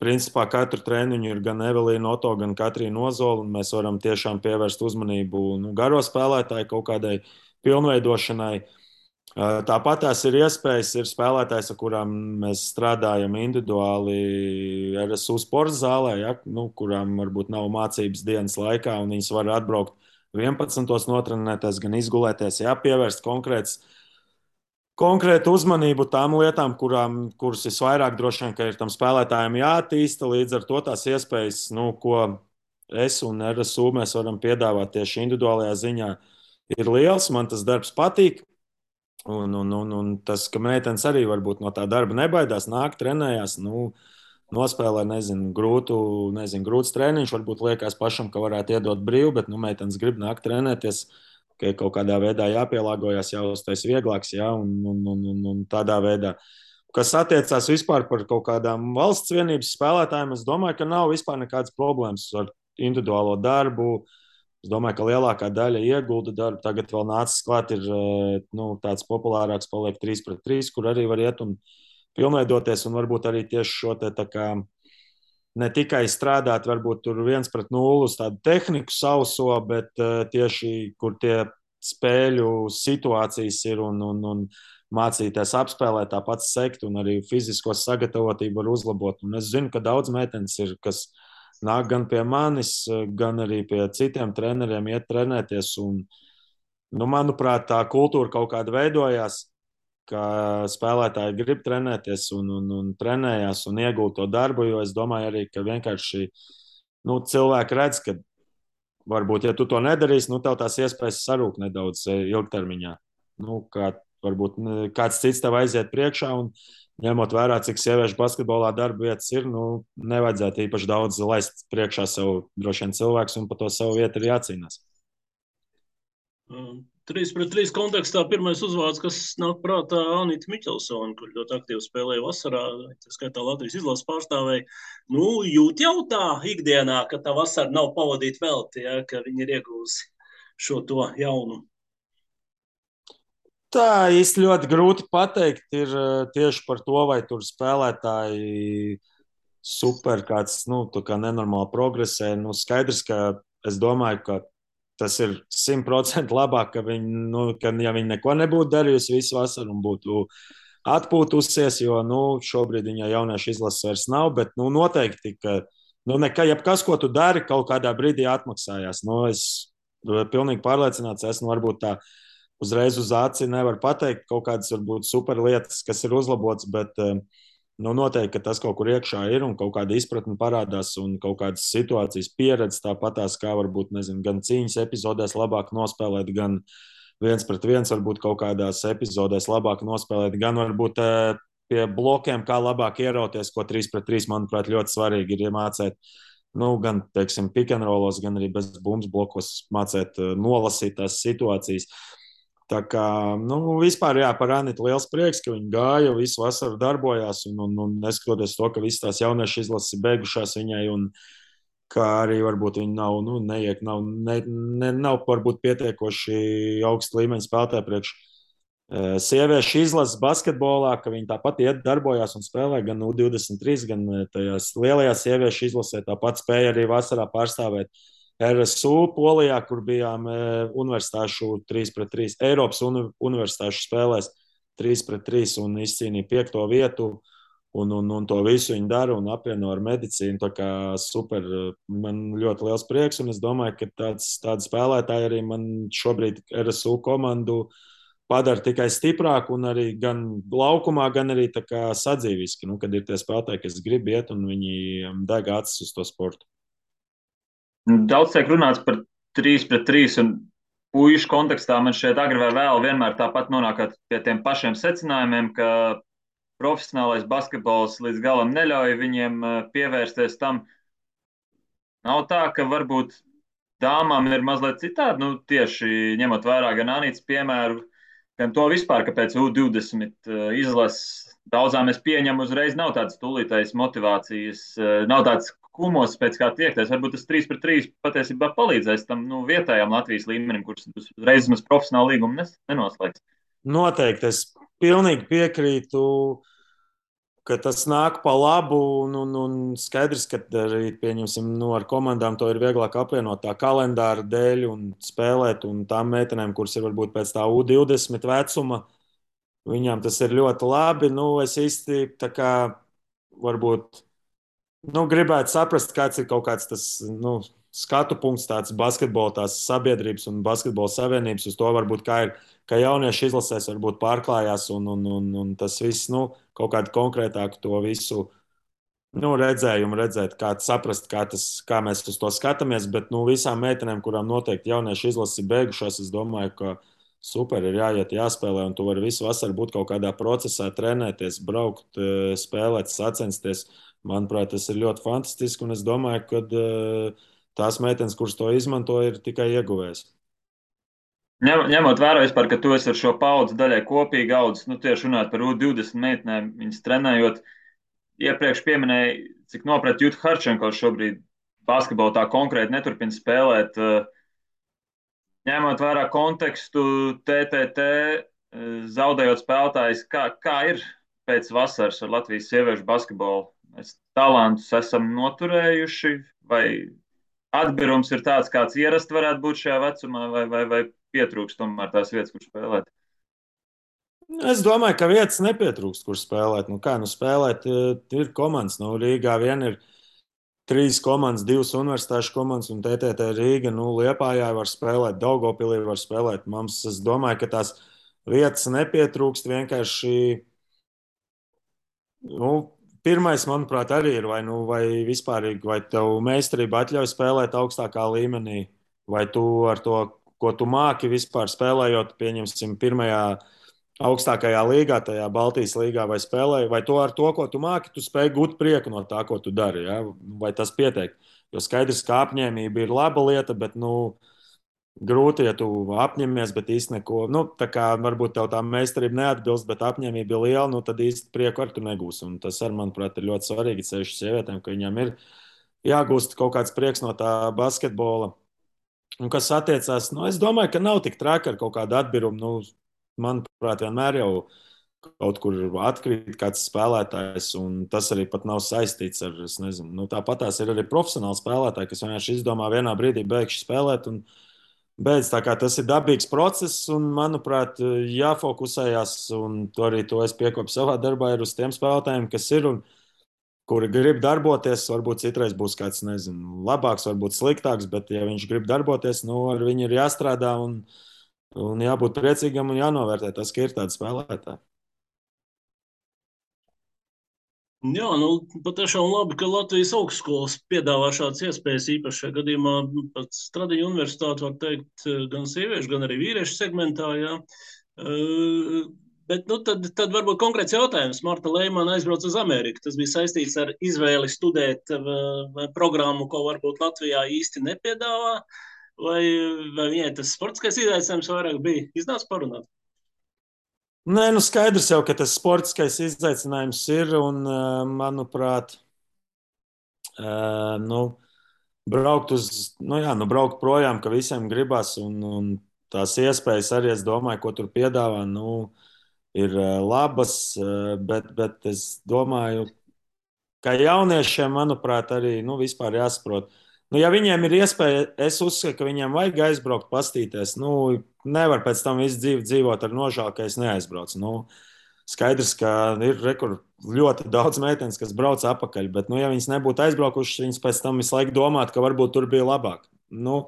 principā katru treniņu ir gan Evelīna Oto, gan Katrīna Ozola, un mēs varam tiešām pievērst uzmanību garo spēlētāju kaut kādai pilnveidošanai. Tāpat tās ir iespējas, ir spēlētājs, ar kurām mēs strādājam individuāli RSU sporta zālē, ja, kurām varbūt nav mācības dienas laikā, un viņas var atbraukt 11. notrenēties, gan izgulēties, pievērst konkrētu uzmanību tām lietām, kuras visvairāk droši vien, ka ir tam spēlētājiem jāattīsta. Līdz ar to tās iespējas, ko es un RSU mēs varam piedāvāt tieši individuālajā ziņā, ir liels. Man tas darbs patīk. Un tas, ka meitenes arī varbūt no tā darba nebaidās, nāk, trenējās, nospēlē, grūts treniņš, varbūt liekas pašam, ka varētu iedot brīvu, bet meitenes grib nākt trenēties, ka kaut kādā veidā jāpielāgojas, jāuztais vieglāks, un tādā veidā. Kas attiecās vispār par kaut kādām valsts vienības spēlētājiem, es domāju, ka nav vispār nekādas problēmas ar individuālo darbu. Es domāju, ka lielākā daļa iegulda darbu. Tagad vēl nācis klāt, ir tāds populārāks, paliek 3-3, kur arī var iet un pilnveidoties, un varbūt arī tieši šo te tā kā ne tikai strādāt, varbūt tur 1-0 uz tādu tehniku sauso, bet tieši kur tie spēļu situācijas ir un mācīties apspēlēt, tāpat sekt un arī fizisko sagatavotību var uzlabot. Un es zinu, ka daudz meitenes ir, kas nāk gan pie manis, gan arī pie citiem treneriem iet trenēties. Un, manuprāt, tā kultūra kaut kāda veidojās, ka spēlētāji grib trenēties un trenējās un iegūt to darbu, jo es domāju arī, ka vienkārši cilvēki redz, ka varbūt, ja tu to nedarīsi, tev tās iespējas sarūk nedaudz ilgtermiņā. Kā varbūt kāds cits tev aiziet priekšā un ņemot vērā, cik sieviešu basketbolā darba vietas ir, nevajadzētu īpaši daudz laist priekšā sev droši vien cilvēks, un par to savu vietu ir jācīnās. 3-3 kontekstā pirmais uzvārds, kas nāk prātā, Anita Miķelsone, kur ļoti aktīvi spēlēja vasarā, tā skaitā Latvijas izlases pārstāvēja. Jūt jau tā ikdienā, ka tā vasara nav pavadīta velti, ka viņi ir iegūsi šo to jaunu. Tā īsti ļoti grūti pateikt ir tieši par to, vai tur spēlētāji super kāds, kā nenormāli progresē. Skaidrs, ka es domāju, ka tas ir 100% labāk, ka ja viņi neko nebūtu darījusi visu vasaru un būtu atpūtusies, jo šobrīd viņa jauniešu izlases vairs nav, bet noteikti, ka jebkas, ko tu dari, kaut kādā brīdī atmaksājās. Es pilnīgi pārliecināts esmu, varbūt tā uzreiz uz aci nevar pateikt kaut kādas varbūt super lietas, kas ir uzlabotas, bet noteikti, ka tas kaut kur iekšā ir un kaut kāda izpratne parādās un kaut kādas situācijas pieredze tāpatās, kā varbūt, gan cīņas epizodēs labāk nospēlēt, gan 1-1 varbūt kaut kādās epizodēs labāk nospēlēt, gan varbūt pie blokiem, kā labāk ierauties, ko 3-3, manuprāt, ļoti svarīgi ir iemācēt. Gan, teiksim, pick and rollos, gan arī bez bumbas blokos mācēt nolasīt tās situācijas. Tā kā, vispār, par Anitu liels prieks, ka viņi gāja, visu vasaru darbojās, un neskatoties to, ka visas tās jauniešu izlases ir beigušās viņai, un kā arī varbūt viņi nav varbūt pietiekoši augsta līmeņa spēlētāji priekš sieviešu izlases basketbolā, ka viņi tāpat iet darbojās un spēlē gan U23, gan tajās lielajās sieviešu izlasē, tāpat spēja arī vasarā pārstāvēt RSU Polijā, kur bijām universitāšu 3-3, Eiropas universitāšu spēlēs 3-3 un izcīnīja 5. vietu. Un to visu viņi dara un apvieno ar medicīnu. Tā kā super, man ļoti liels prieks. Un es domāju, ka tādi spēlētāji arī man šobrīd RSU komandu padara tikai stiprāku un arī gan laukumā, gan arī sadzīviski. Nu, kad ir tie spēlētāji, kas grib iet un viņi deg acis uz to sportu. Daudz tiek runāts par 3-3 un puišu kontekstā. Man šķiet, agri vai vēl vienmēr tāpat nonākat pie tiem pašiem secinājumiem, ka profesionālais basketbols līdz galam neļauj viņiem pievērsties tam. Nav tā, ka varbūt dāmām ir mazliet citādi, nu, tieši ņemot vērā gan Anītas piemēru, gan to vispār, ka pēc U20 izlases daudzām es pieņemu uzreiz nav tādas tūlītējas motivācijas, nav tāds kumos pēc kā tiekties. Varbūt tas 3-3 patiesībā palīdzēs tam vietējām Latvijas līmenim, kurš uzreiz mēs profesionālu līgumu nenoslēgs. Noteikti, es pilnīgi piekrītu, ka tas nāk pa labu, un skaidrs, ka arī, pieņemsim, ar komandām to ir vieglāk apvienot tā kalendāra dēļ un spēlēt, un tām meitenēm, kuras ir varbūt pēc tā U20 vecuma, viņām tas ir ļoti labi. Es īsti tā kā varbūt gribētu saprast, kāds ir kaut kāds tas skatu punkts, tāds basketbola, tās sabiedrības un basketbola savienības uz to varbūt kā ir, ka jaunieši izlasēs varbūt pārklājās un tas viss, kaut kādu konkrētāku to visu redzējumu redzēt, kā saprast, kā mēs uz to skatāmies, bet visām meitenēm, kurām noteikti jaunieši izlases ir beigušās, es domāju, ka super ir jāiet, jāspēlē, un tu vari visu vasaru būt kaut kādā procesā, trenēties, braukt, spēlēt, sacensties. Manuprāt, tas ir ļoti fantastiski, un es domāju, ka tās meitenes, kuras to izmanto, ir tikai ieguvējis. Ņemot vērā vispār, ka tu esi ar šo paudzi daļai kopīgi audzis, tieši runāt par U20 meitenēm, viņas trenējot, iepriekš pieminēja, cik nopret Juta Harčenko šobrīd basketbolu tā konkrēti neturpina spēlēt. Ņemot vērā kontekstu TTT, zaudējot spēlētājs, kā ir pēc vasaras ar Latvijas sieviešu basketbolu? Mēs talantus esam noturējuši, vai atbirums ir tāds, kāds ierasti varētu būt šajā vecumā, vai pietrūkst tomēr tās vietas, kur spēlēt? Es domāju, ka vietas nepietrūkst, kur spēlēt. Spēlēt ir komandas. Rīgā vien ir 3 komandas, 2 universitāšu komandas un TTT Rīga. Liepājā var spēlēt, Daugavpilī var spēlēt. Es domāju, ka tās vietas nepietrūkst. Vienkārši pirmais, manuprāt, arī ir, vai vispārīgi, vai tev meistarība atļauj spēlēt augstākā līmenī, vai tu ar to, ko tu māki vispār spēlējot, pieņemsim, pirmajā augstākajā līgā, tajā Baltijas līgā, vai spēlēji, vai to ar to, ko tu māki, tu spēj gūt prieku no tā, ko tu dari, ja? Vai tas pietiek? Jo skaidrs, ka apņēmība ir laba lieta, bet, grūti, ja tu apņemies, bet īsti neko. Tā kā varbūt tev tā meistarība neatbilst, bet apņēmība ir liela, tad īsti prieku ar tu negūsi. Un tas, manuprāt, ir ļoti svarīgi ceļš sievietēm, ka viņām ir jāgūst kaut kāds prieks no tā basketbola. Un kas attiecās, es domāju, ka nav tik traki ar kaut kādu atbirumu. Manuprāt, vienmēr jau kaut kur atkrīt kāds spēlētājs, un tas arī pat nav saistīts ar, es nezinu, tāpat tās ir arī profesionāli spēlētāji, kas vienkārši izdomā vienā brīdī beigšu spēlēt un beidz. Tā kā tas ir dabīgs process, un, manuprāt, jāfokusējas, un to arī to es piekopu savā darbā, ir uz tiem spēlētājiem, kas ir un kuri grib darboties. Varbūt citreiz būs kāds, nezinu, labāks, varbūt sliktāks, bet, ja viņš grib darboties, ar viņu ir jāstrādā un jābūt priecīgam un jānovērtē tas, ka ir tādi spēlētāji. Jā, patiešām labi, ka Latvijas augstskolas piedāvā šādas iespējas. Īpaši šajā gadījumā pat Stradiņu universitāte, var teikt, gan sieviešu, gan arī vīriešu segmentā. Jā. Bet tad varbūt konkrēts jautājums. Marta Leimana aizbrauca uz Ameriku. Tas bija saistīts ar izvēli studēt programmu, ko varbūt Latvijā īsti nepiedāvā. Vai viņai tas sportiskais izaicinājums vairāk bija? Iznāca parunāt? Nē, skaidrs jau, ka tas sportiskais izaicinājums ir, un, manuprāt, braukt braukt projām, ka visiem gribas, un tās iespējas arī, es domāju, ko tur piedāvā, ir labas, bet es domāju, ka jauniešiem, manuprāt, arī vispār jāsaprot, Nu, ja viņiem ir iespēja, es uzskatu, ka viņiem vajag aizbraukt, pastīties. Nu, nevar pēc tam visu dzīvi dzīvot ar nožēlu, ka es neaizbraucu. Nu, skaidrs, ka ir ļoti daudz meitenes, kas brauc atpakaļ, bet, nu, ja viņas nebūtu aizbraukušas, viņas pēc tam visu laiku domātu, ka varbūt tur bija labāk. Nu,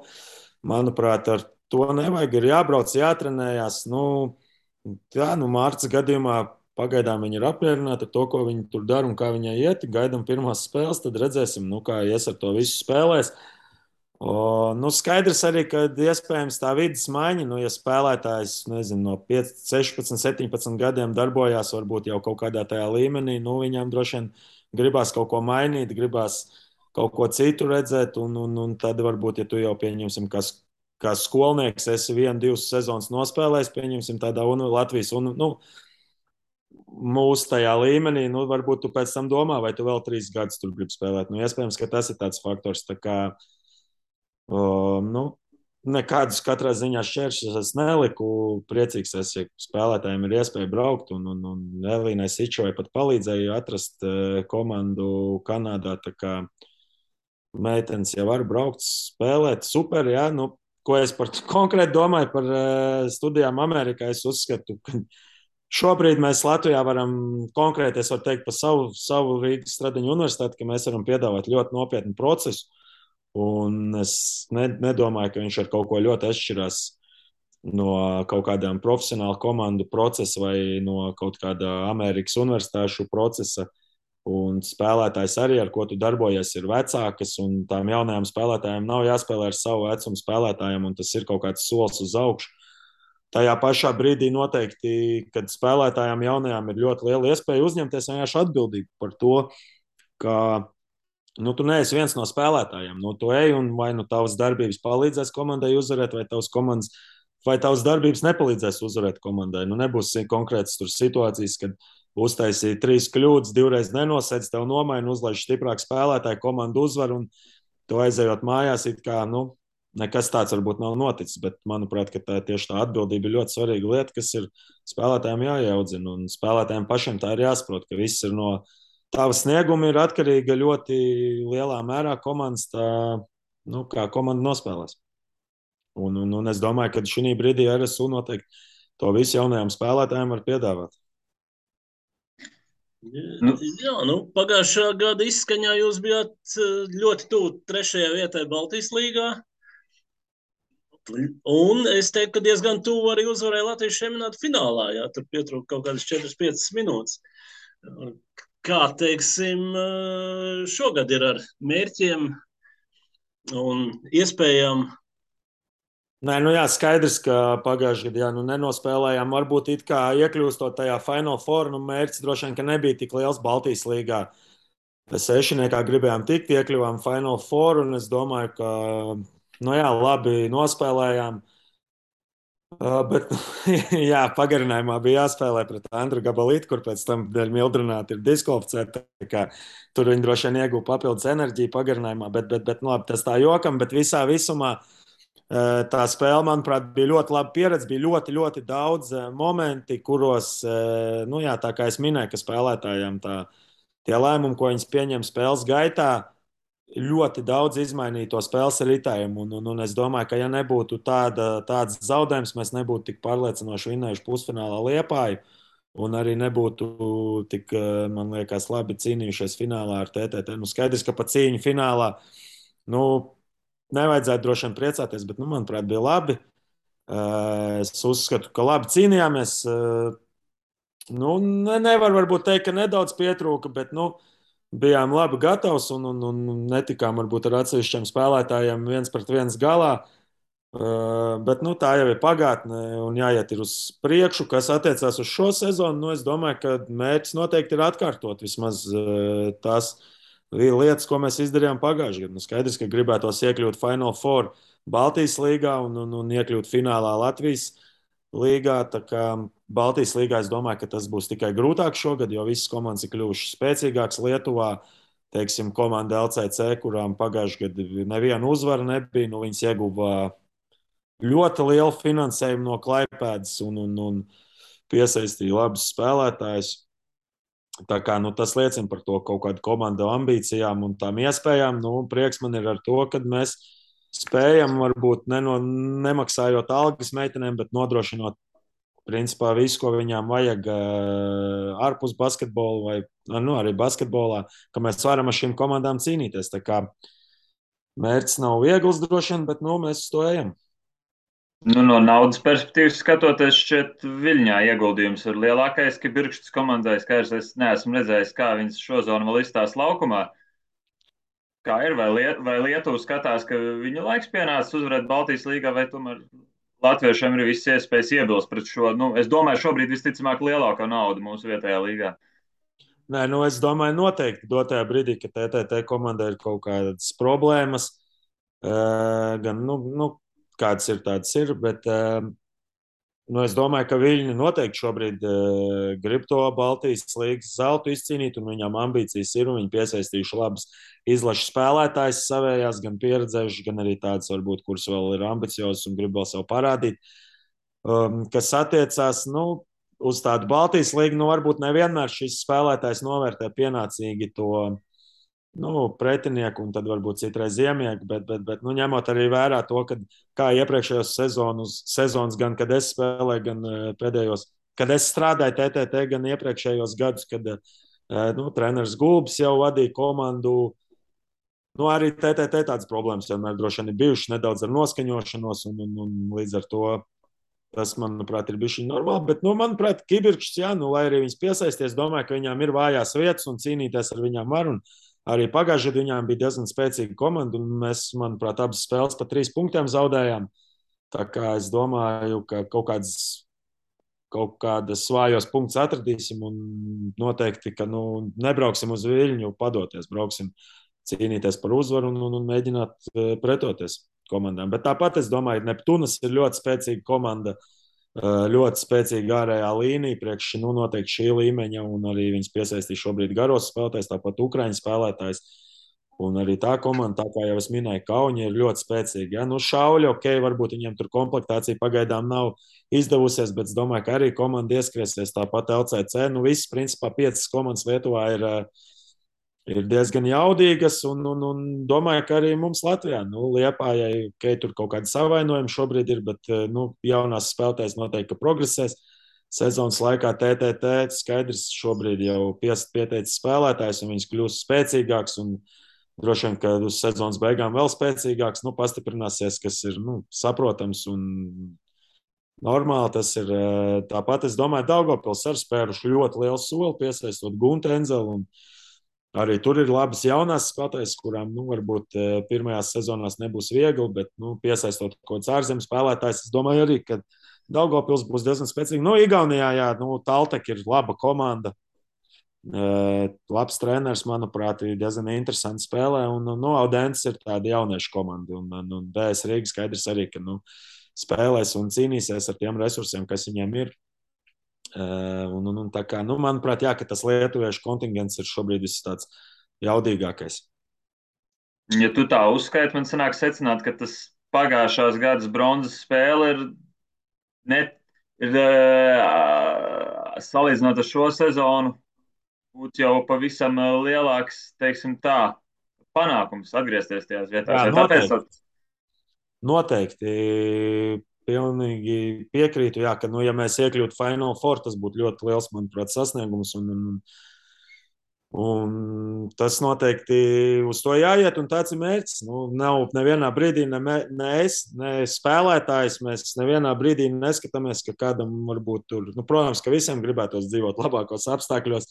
manuprāt, ar to nevajag. Ir jābrauc, jātrenējās. Nu, jā, nu, Mārcis gadījumā pagaidām viņa ir apmierināta ar to, ko viņa tur dara un kā viņai iet. Gaidām pirmās spēles, tad redzēsim, nu, kā ies ar to visu spēlēs. Nu, skaidrs arī, ka iespējams tā vidas maiņa, nu, ja spēlētājs nezinu, no 5, 16, 17 gadiem darbojās varbūt jau kaut kādā tajā līmenī, nu, viņam droši vien gribās kaut ko mainīt, gribās kaut ko citu redzēt, un tad varbūt, ja tu jau pieņemsim, kā skolnieks, esi 1, 2 sezonas nospēlējis, pieņemsim tādā Latvijas, nu, mūsu tajā līmenī, nu, varbūt tu pēc tam domā, vai tu vēl 3 gadus tur gribi spēlēt. Nu, iespējams, ka tas ir tāds faktors, tā kā, nu, nekādus katrā ziņā šķēršļus es neliku. Priecīgs esmu, ja spēlētājiem ir iespēja braukt, un Elīnai Sičovai pat palīdzēja atrast komandu Kanādā, tā kā meitenes jau var braukt, spēlēt, super, jā, nu, ko es konkrēti domāju par studijām Amerikā, es uzskatu, ka šobrīd mēs Latvijā varam konkrēti, es varu teikt par savu Rīgas Stradiņu universitāti, ka mēs varam piedāvāt ļoti nopietnu procesu, un es nedomāju, ka viņš ar kaut ko ļoti atšķirās no kaut kādām profesionālu komandu procesa vai no kaut kāda Amerikas universitāšu procesa. Un spēlētājs arī, ar ko tu darbojies, ir vecākas, un tām jaunajām spēlētājām nav jāspēlē ar savu vecumu spēlētājiem, un tas ir kaut kāds solis uz augšu. Tajā pašā brīdī noteikti, kad spēlētājām jaunajām ir ļoti liela iespēja uzņemties vienkārši atbildību par to, ka nu, tu neesi viens no spēlētājiem. Nu, tu ej un vai nu tavas darbības palīdzēs komandai uzvarēt, vai tavas darbības nepalīdzēs uzvarēt komandai. Nu, nebūs konkrētas situācijas, kad uztaisīja 3 kļūdas, 2 reizes nenosēdz, tev nomaina, uzlaiž stiprāk spēlētāju, komandu uzvar, un tu aizejot mājās, it kā, nu, nekas tāds varbūt nav noticis, bet manuprāt, ka tieši tā atbildība ir ļoti svarīga lieta, kas ir spēlētājiem jāiaudzina, un spēlētājiem pašiem tā ir jāsaprot, ka viss ir no tava snieguma ir atkarīga ļoti lielā mērā komandas, tā, nu, kā komanda nospēlēs. Un es domāju, ka šī brīdī RSU noteikti to visu jaunajiem spēlētājiem var piedāvāt. Jā, nu, pagājušā gada izskaņā jūs bijāt ļoti tuvu 3. vietai Baltijas līgā. Un es teiktu, ka diezgan tuvu arī uzvarēja Latvijas čempionāta finālā. Jā, tur pietrūka kaut kādas 4-5 minūtes. Kā teiksim, šogad ir ar mērķiem un iespējām? Nē, nu jā, skaidrs, ka pagājušajā gadā nu, nenospēlējām. Varbūt it kā iekļūstot tajā Final Four, nu mērķis droši vien, ka nebija tik liels Baltijas līgā. Sešniekā gribējām tikt, iekļuvām Final Four, un es domāju, ka, nu jā, labi nospēlējām. Bet, jā, pagarinājumā bija jāspēlē pret Andru Gabalītu, kur pēc tam dēļ mildrināti ir diskvalificēti. Tur viņi droši vien ieguva papildus enerģiju pagarinājumā, bet nu, labi, tas tā jokam, bet visā visumā tā spēle, manuprāt, bija ļoti laba pieredze. Bija ļoti, ļoti daudz momenti, kuros, nu jā, tā kā es minēju, ka spēlētājiem tie lēmumi, ko viņi pieņem spēles gaitā, ļoti daudz izmainīja to spēles ritējumu. Un es domāju, ka ja nebūtu tāds zaudējums, mēs nebūtu tik pārliecinoši vinnējuši pusfinālā Liepāju. Un arī nebūtu tik, man liekas, labi cīnījušies finālā ar TTT. Nu, skaidrs, ka pa cīņu finālā, nu, nevajadzētu droši vien priecāties, bet, nu, manuprāt, bija labi. Es uzskatu, ka labi cīnījāmies. Nu, nevar varbūt teikt, ka nedaudz pietrūka, bet, nu, bijām labi gatavs un netikām varbūt ar atsevišķiem spēlētājiem 1-1 galā. Bet nu, tā jau ir pagātne un jāiet uz priekšu. Kas attiecās uz šo sezonu, nu, es domāju, ka mērķis noteikti ir atkārtot vismaz tās lietas, ko mēs izdarījām pagājušajā gadā. Nu, skaidrs, ka gribētos iekļūt Final Four Baltijas līgā un iekļūt finālā Latvijas līgā. Tā kā Baltijas līgā es domāju, ka tas būs tikai grūtāk šogad, jo visas komandas ir kļuvušas spēcīgākas Lietuvā. Teiksim, komanda LCC, kurām pagājušajā gadā neviena uzvara nebija, nu, viņas ieguva ļoti lielu finansējumu no Klaipēdas un piesaistīja labus spēlētājus. Tā kā, tas liecina par to kaut kādu komandu ambīcijām un tām iespējām. Prieks man ir ar to, ka mēs spējam varbūt nemaksājot algas meitenēm, bet nodrošinot principā visu, ko viņām vajag ārpus basketbola vai arī basketbolā, ka mēs varam ar šīm komandām cīnīties. Tā kā mērķis nav viegls droši vien, bet mēs uz to ejam. No naudas perspektīvas skatoties, šķiet, Viļņā ieguldījums ir lielākais, ka Birkštas komandai skaidrs, es neesmu redzējis, kā viņas šo zonu vēl izstās laukumā. Kā ir, vai Lietuva skatās, ka viņu laiks pienācis uzvarēt Baltijas līgā, vai tomēr latviešiem ir visas iespējas iebilst pret šo, es domāju, šobrīd visticamāk lielākā nauda mūsu vietējā līgā. Nē, es domāju, noteikti dotajā brīdī, kad TTT komandai ir kaut kādas problēmas, gan, kādas ir, tādas ir, bet es domāju, ka Viļņi noteikti šobrīd grib to Baltijas līgas zeltu izcīnīt, un viņām ambīcijas ir, un viņi piesaistījuši labas izlašu spēlētājs savējās, gan pieredzējuši, gan arī tādas, varbūt, kuras vēl ir ambiciozas un grib vēl sev parādīt. Kas attiecās, uz tādu Baltijas līgu, varbūt nevienmēr šis spēlētājs novērtē pienācīgi to pretinieku un tad varbūt citreiz iemieku, bet ņemot arī vērā to, kā iepriekšējos sezonas, gan kad es spēlēju, gan pēdējos, kad es strādāju TTT, gan iepriekšējos gadus, kad treneris Gulbis jau vadīja komandu. Arī TTT tādas problēmas vienmēr droši vien ir bijušas nedaudz ar noskaņošanos, un līdz ar to tas, manuprāt, ir bijis normāli. Bet, manuprāt, Kibirkšs, lai arī viņas piesaisties, domāju, ka viņām ir vājās vietas un cīnīties ar viņām var. Un arī pagājušajā gadā viņām bija diezgan spēcīga komanda, un mēs, manuprāt, abas spēles pa 3 punktiem zaudējām. Tā kā es domāju, ka kaut kādas vājos punktus atradīsim un noteikti, ka nebrauksim uz Viļņu padoties, brauksim cīnīties par uzvaru un mēģināt pretoties komandām. Bet tāpat es domāju, ka Neptūnas ir ļoti spēcīga komanda, ļoti spēcīga ārējā līnija, priekš noteikti šī līmeņa, un arī viņas piesaistīja šobrīd garos spēlētājs, tāpat Ukraiņu spēlētājs. Un arī tā komanda, tā kā jau es minēju, Kauņa ir ļoti spēcīga. Ja? Šauļi, varbūt viņiem tur komplektācija pagaidām nav izdevusies, bet es domāju, ka arī komanda ieskriesies tāpat LCC. Visas, principā, 5 komandas Lietuvā ir diezgan jaudīgas, un domāju, ka arī mums Latvijā, Liepājai, tur kaut kādi savainojumi šobrīd ir, bet jaunās spēlētājas noteikti progresēs. Sezonas laikā TTT skaidrs šobrīd jau pieteicis spēlētājs, un viņas kļūst spēcīgāks, un droši vien, ka uz sezonas beigām vēl spēcīgāks, pastiprināsies, kas ir saprotams un normāli. Tas ir tāpat, es domāju, Daugavpils ar spēruši ļoti lielu soli, piesaistot Guntu Enzelu, un arī tur ir labas jaunās spēlētājas, kurām varbūt pirmajās sezonās nebūs viegli, bet piesaistot kaut kāds ārzemes spēlētājs, es domāju arī, ka Daugavpils būs diezgan spēcīga. Igaunijā, jā, Taltek ir laba komanda, labs treneris, manuprāt, ir diezgan interesanti spēlē, un Audents ir tāda jauniešu komanda, un DS Rīga skaidrs arī, ka spēlēs un cīnīsies ar tiem resursiem, kas viņiem ir. Tā kā, manuprāt, jā, ka tas lietuviešu kontingents ir šobrīd viss tāds jaudīgākais. Ja tu tā uzskaiti, man sanāk secināt, ka tas pagājušās gadas bronzas spēle ir salīdzinot ar šo sezonu, būtu jau pavisam lielāks, teiksim tā, panākums atgriezties tajās vietās. Jā, noteikti. Pilnīgi piekrītu, jā, ka, ja mēs iekļūtu Final Four, tas būtu ļoti liels, manuprāt, sasniegums. Un tas noteikti uz to jāiet, un tāds ir mērķis. Nav nevienā brīdī ne es, ne spēlētājs. Mēs nevienā brīdī neskatāmies, ka kādam varbūt tur, protams, ka visiem gribētos dzīvot labākos apstākļos,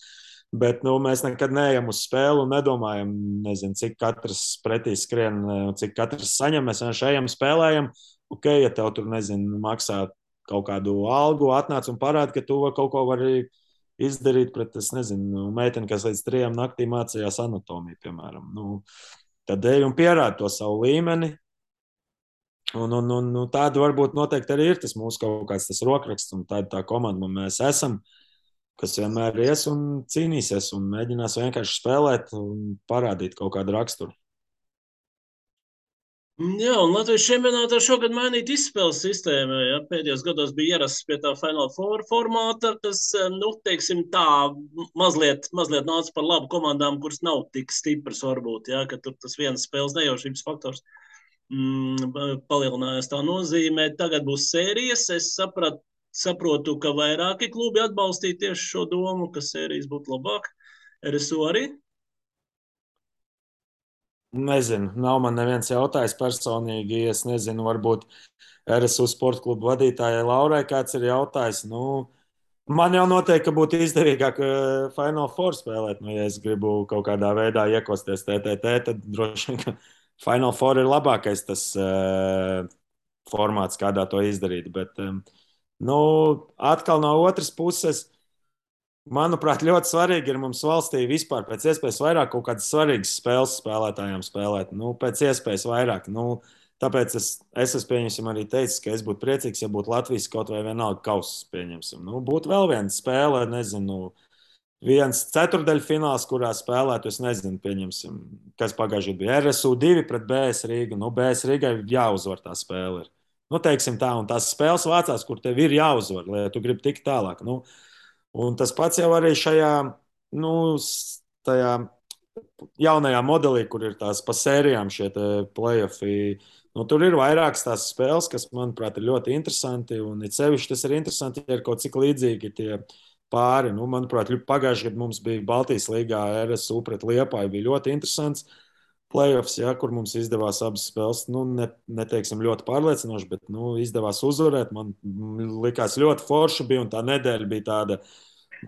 bet mēs nekad neejam uz spēli un nedomājam, cik katrs pretī skrien, cik katrs saņem. Mēs vienkārši ejam, spēlējam. Ja tev tur, maksā kaut kādu algu, atnāc un parāda, ka tu kaut ko vari izdarīt pret, meiteni, kas līdz 3 naktī mācījās anatomiju, piemēram. Tad ej un pierādi to savu līmeni. Un tāda varbūt noteikti arī ir tas mūsu kaut kāds tas rokraksts, un tāda tā komanda mēs esam, kas vienmēr ies un cīnīsies un mēģinās vienkārši spēlēt un parādīt kaut kādu raksturu. Jā, un Latvijas čempionātā šogad mainīt izspēles sistēmu. Ja? Pēdējos gados bija ierasts pie tā Final Four formāta, kas, teiksim tā, mazliet nāca par labu komandām, kuras nav tik stipras varbūt, ja? Ka tur tas viens spēles nejaušības faktors palielinājās tā nozīmē. Tagad būs sērijas. Es saprotu, ka vairāki klubi atbalstīja tieši šo domu, ka sērijas būtu labāk. RSU arī? Nezinu, nav man neviens jautājis personīgi. Es nezinu, varbūt RSU sporta klubu vadītājai Laurai kāds ir jautājis. Nu, man jau noteikti būtu izdevīgāk Final Four spēlēt. Nu, ja es gribu kaut kādā veidā iekosties TTT, tad droši vien, ka Final Four ir labākais tas formāts, kādā to izdarīt. Bet, nu, atkal no otras puses. Manuprāt, ļoti svarīgi ir mums valstī vispār pēc iespējas vairāk kaut kādas svarīgas spēles spēlētājiem spēlēt. Nu, pēc iespējas vairāk. Nu, tāpēc es pieņemsim arī teicu, ka es būtu priecīgs, ja būtu Latvijas kaut vai vienalga kausa pieņemsim. Nu, būtu vēl viena spēle, nezinu, viens ceturdaļfināls, kurā spēlētu, es nezinu, pieņemsim, kas pagājušajā bija RSU 2 pret BS Rīgu. Nu, BS Rīgai jāuzvar tā spēle. Nu, teiksim tā, un tās spēles vācās, kur tev ir jāuzvar, lai tu gribi tikt tālāk. Nu, un tas pats jau arī šajā, nu, tajā jaunajā modelī, kur ir tās pa sērijām šie play-offi. Nu, tur ir vairākas tās spēles, kas, manuprāt, ir ļoti interesanti. Un it sevišķi tas ir interesanti, ja ir kaut cik līdzīgi tie pāri. Nu, manuprāt, pagājušajā gadā mums bija Baltijas līgā RSU pret Liepāju. Bija ļoti interesants play-offs, ja, kur mums izdevās abas spēles. Nu, neteiksim ļoti pārliecinoši, bet nu, izdevās uzvarēt. Man likās ļoti forši bija un tā nedēļa bija tāda.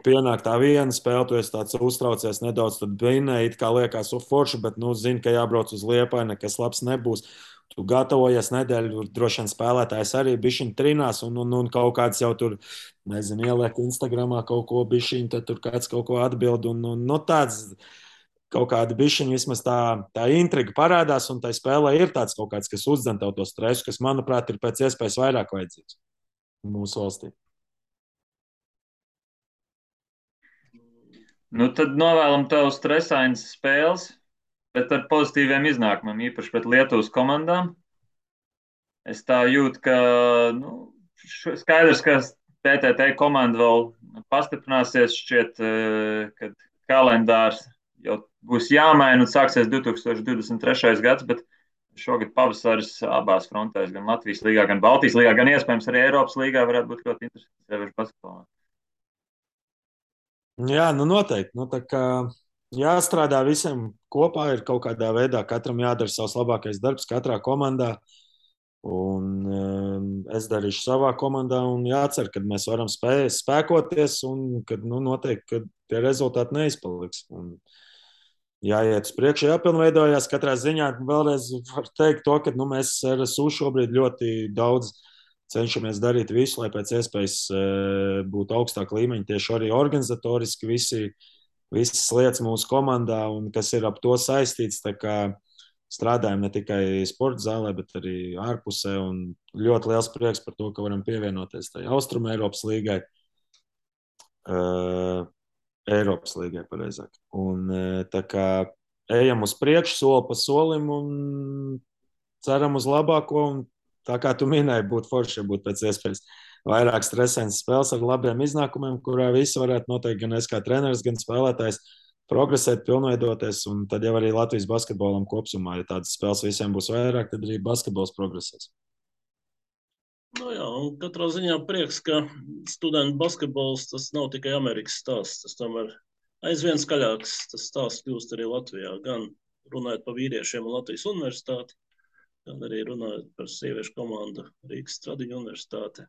Pienāk tā viena spēle, tu esi tāds uztraucies nedaudz, tad vinēji, it kā liekas forši, bet, nu, zini, ka jābrauc uz Liepāju, nekas labs nebūs. Tu gatavojies nedēļu, droši vien spēlētājs arī bišķiņ trinās un kaut kāds jau tur, nezinu, ieliek Instagramā kaut ko bišķiņ, tad tur kāds kaut ko atbild un no tāds kaut kāda bišķiņa vismaz tā intriga parādās un tai spēlē ir tāds kaut kāds, kas uzdzen tev to stresu, kas, manuprāt, ir pēc iespējas vairāk vajadzīgs mūsu valstī. Nu, tad novēlam tev stresainas spēles, bet ar pozitīviem iznākumiem, īpaši pret Lietuvas komandām. Es tā jūtu, ka nu, skaidrs, ka TTT komanda vēl pastiprināsies, šķiet, kad kalendārs jau būs jāmaina un sāksies 2023. gads, bet šogad pavasaris abās frontēs, gan Latvijas līgā, gan Baltijas līgā, gan iespējams arī Eiropas līgā varētu būt ļoti interesants, sevišķi basketbolā. Jā, nu noteikti. Nu, tā kā jāstrādā visiem kopā, ir kaut kādā veidā, katram jādara savs labākais darbs, katrā komandā. Un es darīšu savā komandā un jācer, ka mēs varam spēkoties un kad nu, noteikti, ka tie rezultāti neizpaliks. Un jāiet uz priekšu, jāpilnveidojās. Katrā ziņā vēlreiz var teikt to, ka nu, mēs RSU šobrīd ļoti daudz cenšamies darīt visu, lai pēc iespējas būtu augstāk līmeņi, tieši arī organizatoriski visas lietas mūsu komandā un kas ir ap to saistīts. Tā kā strādājam ne tikai sporta zālē, bet arī ārpusē un ļoti liels prieks par to, ka varam pievienoties tai Austrum Eiropas līgai. Eiropas līgai, pareizāk. Un tā kā ejam uz priekšu, soli pa solim un ceram uz labāko. Un tā kā tu minēji, būtu forši, ja būtu pēc iespējas vairāk stresainas spēles ar labiem iznākumiem, kurā visi varētu noteikti gan es kā treneris, gan spēlētājs progresēt, pilnveidoties. Un tad jau arī Latvijas basketbolam kopumā, ja tādas spēles visiem būs vairāk, tad arī basketbols progresēs. Nu jā, un katrā ziņā prieks, ka studentu basketbols tas nav tikai Amerikas stāsts. Tas tomēr aizvien skaļāks tas stāsts kļūst arī Latvijā. Gan runājot par vīriešiem un Latvijas universitāti, gan arī runājot par sieviešu komandu Rīgas Stradiņu universitāti.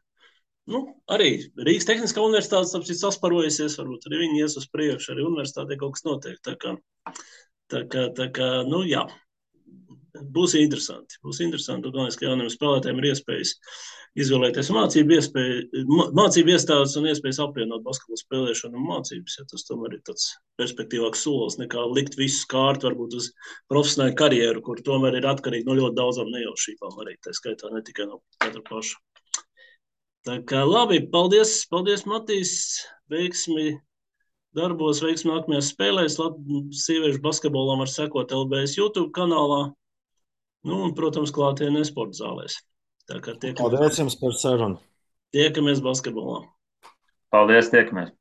Nu, arī Rīgas Tehniskā universitāte tāpēc sasparojusies, varbūt arī viņi ies uz priekšu, arī universitātē kaut kas notiek. Tā kā, nu jā, būs interesanti. Būs interesanti, un galvenais, ka jauniem spēlētājiem ir iespējas izvēlēties mācību iestādes un iespējas apvienot basketbolu spēlēšanu un mācības. Ja tas tomēr ir tāds perspektīvāks solis nekā likt visu kārtu varbūt uz profesionālu karjeru, kur tomēr ir atkarīgi no ļoti daudzām nejaušībām arī. Tā skaitā ne tikai no katra paša. Tā kā labi, paldies Matīs, veiksmi darbos, veiksmi nākamajās spēlēs. Sieviešu basketbolam var sekot LBS YouTube kanālā. Nu, un, protams, klātienē sporta zālēs. Tā kā Paldies jums par sarunu. tiekamies basketbolā. Paldies, tiekamies!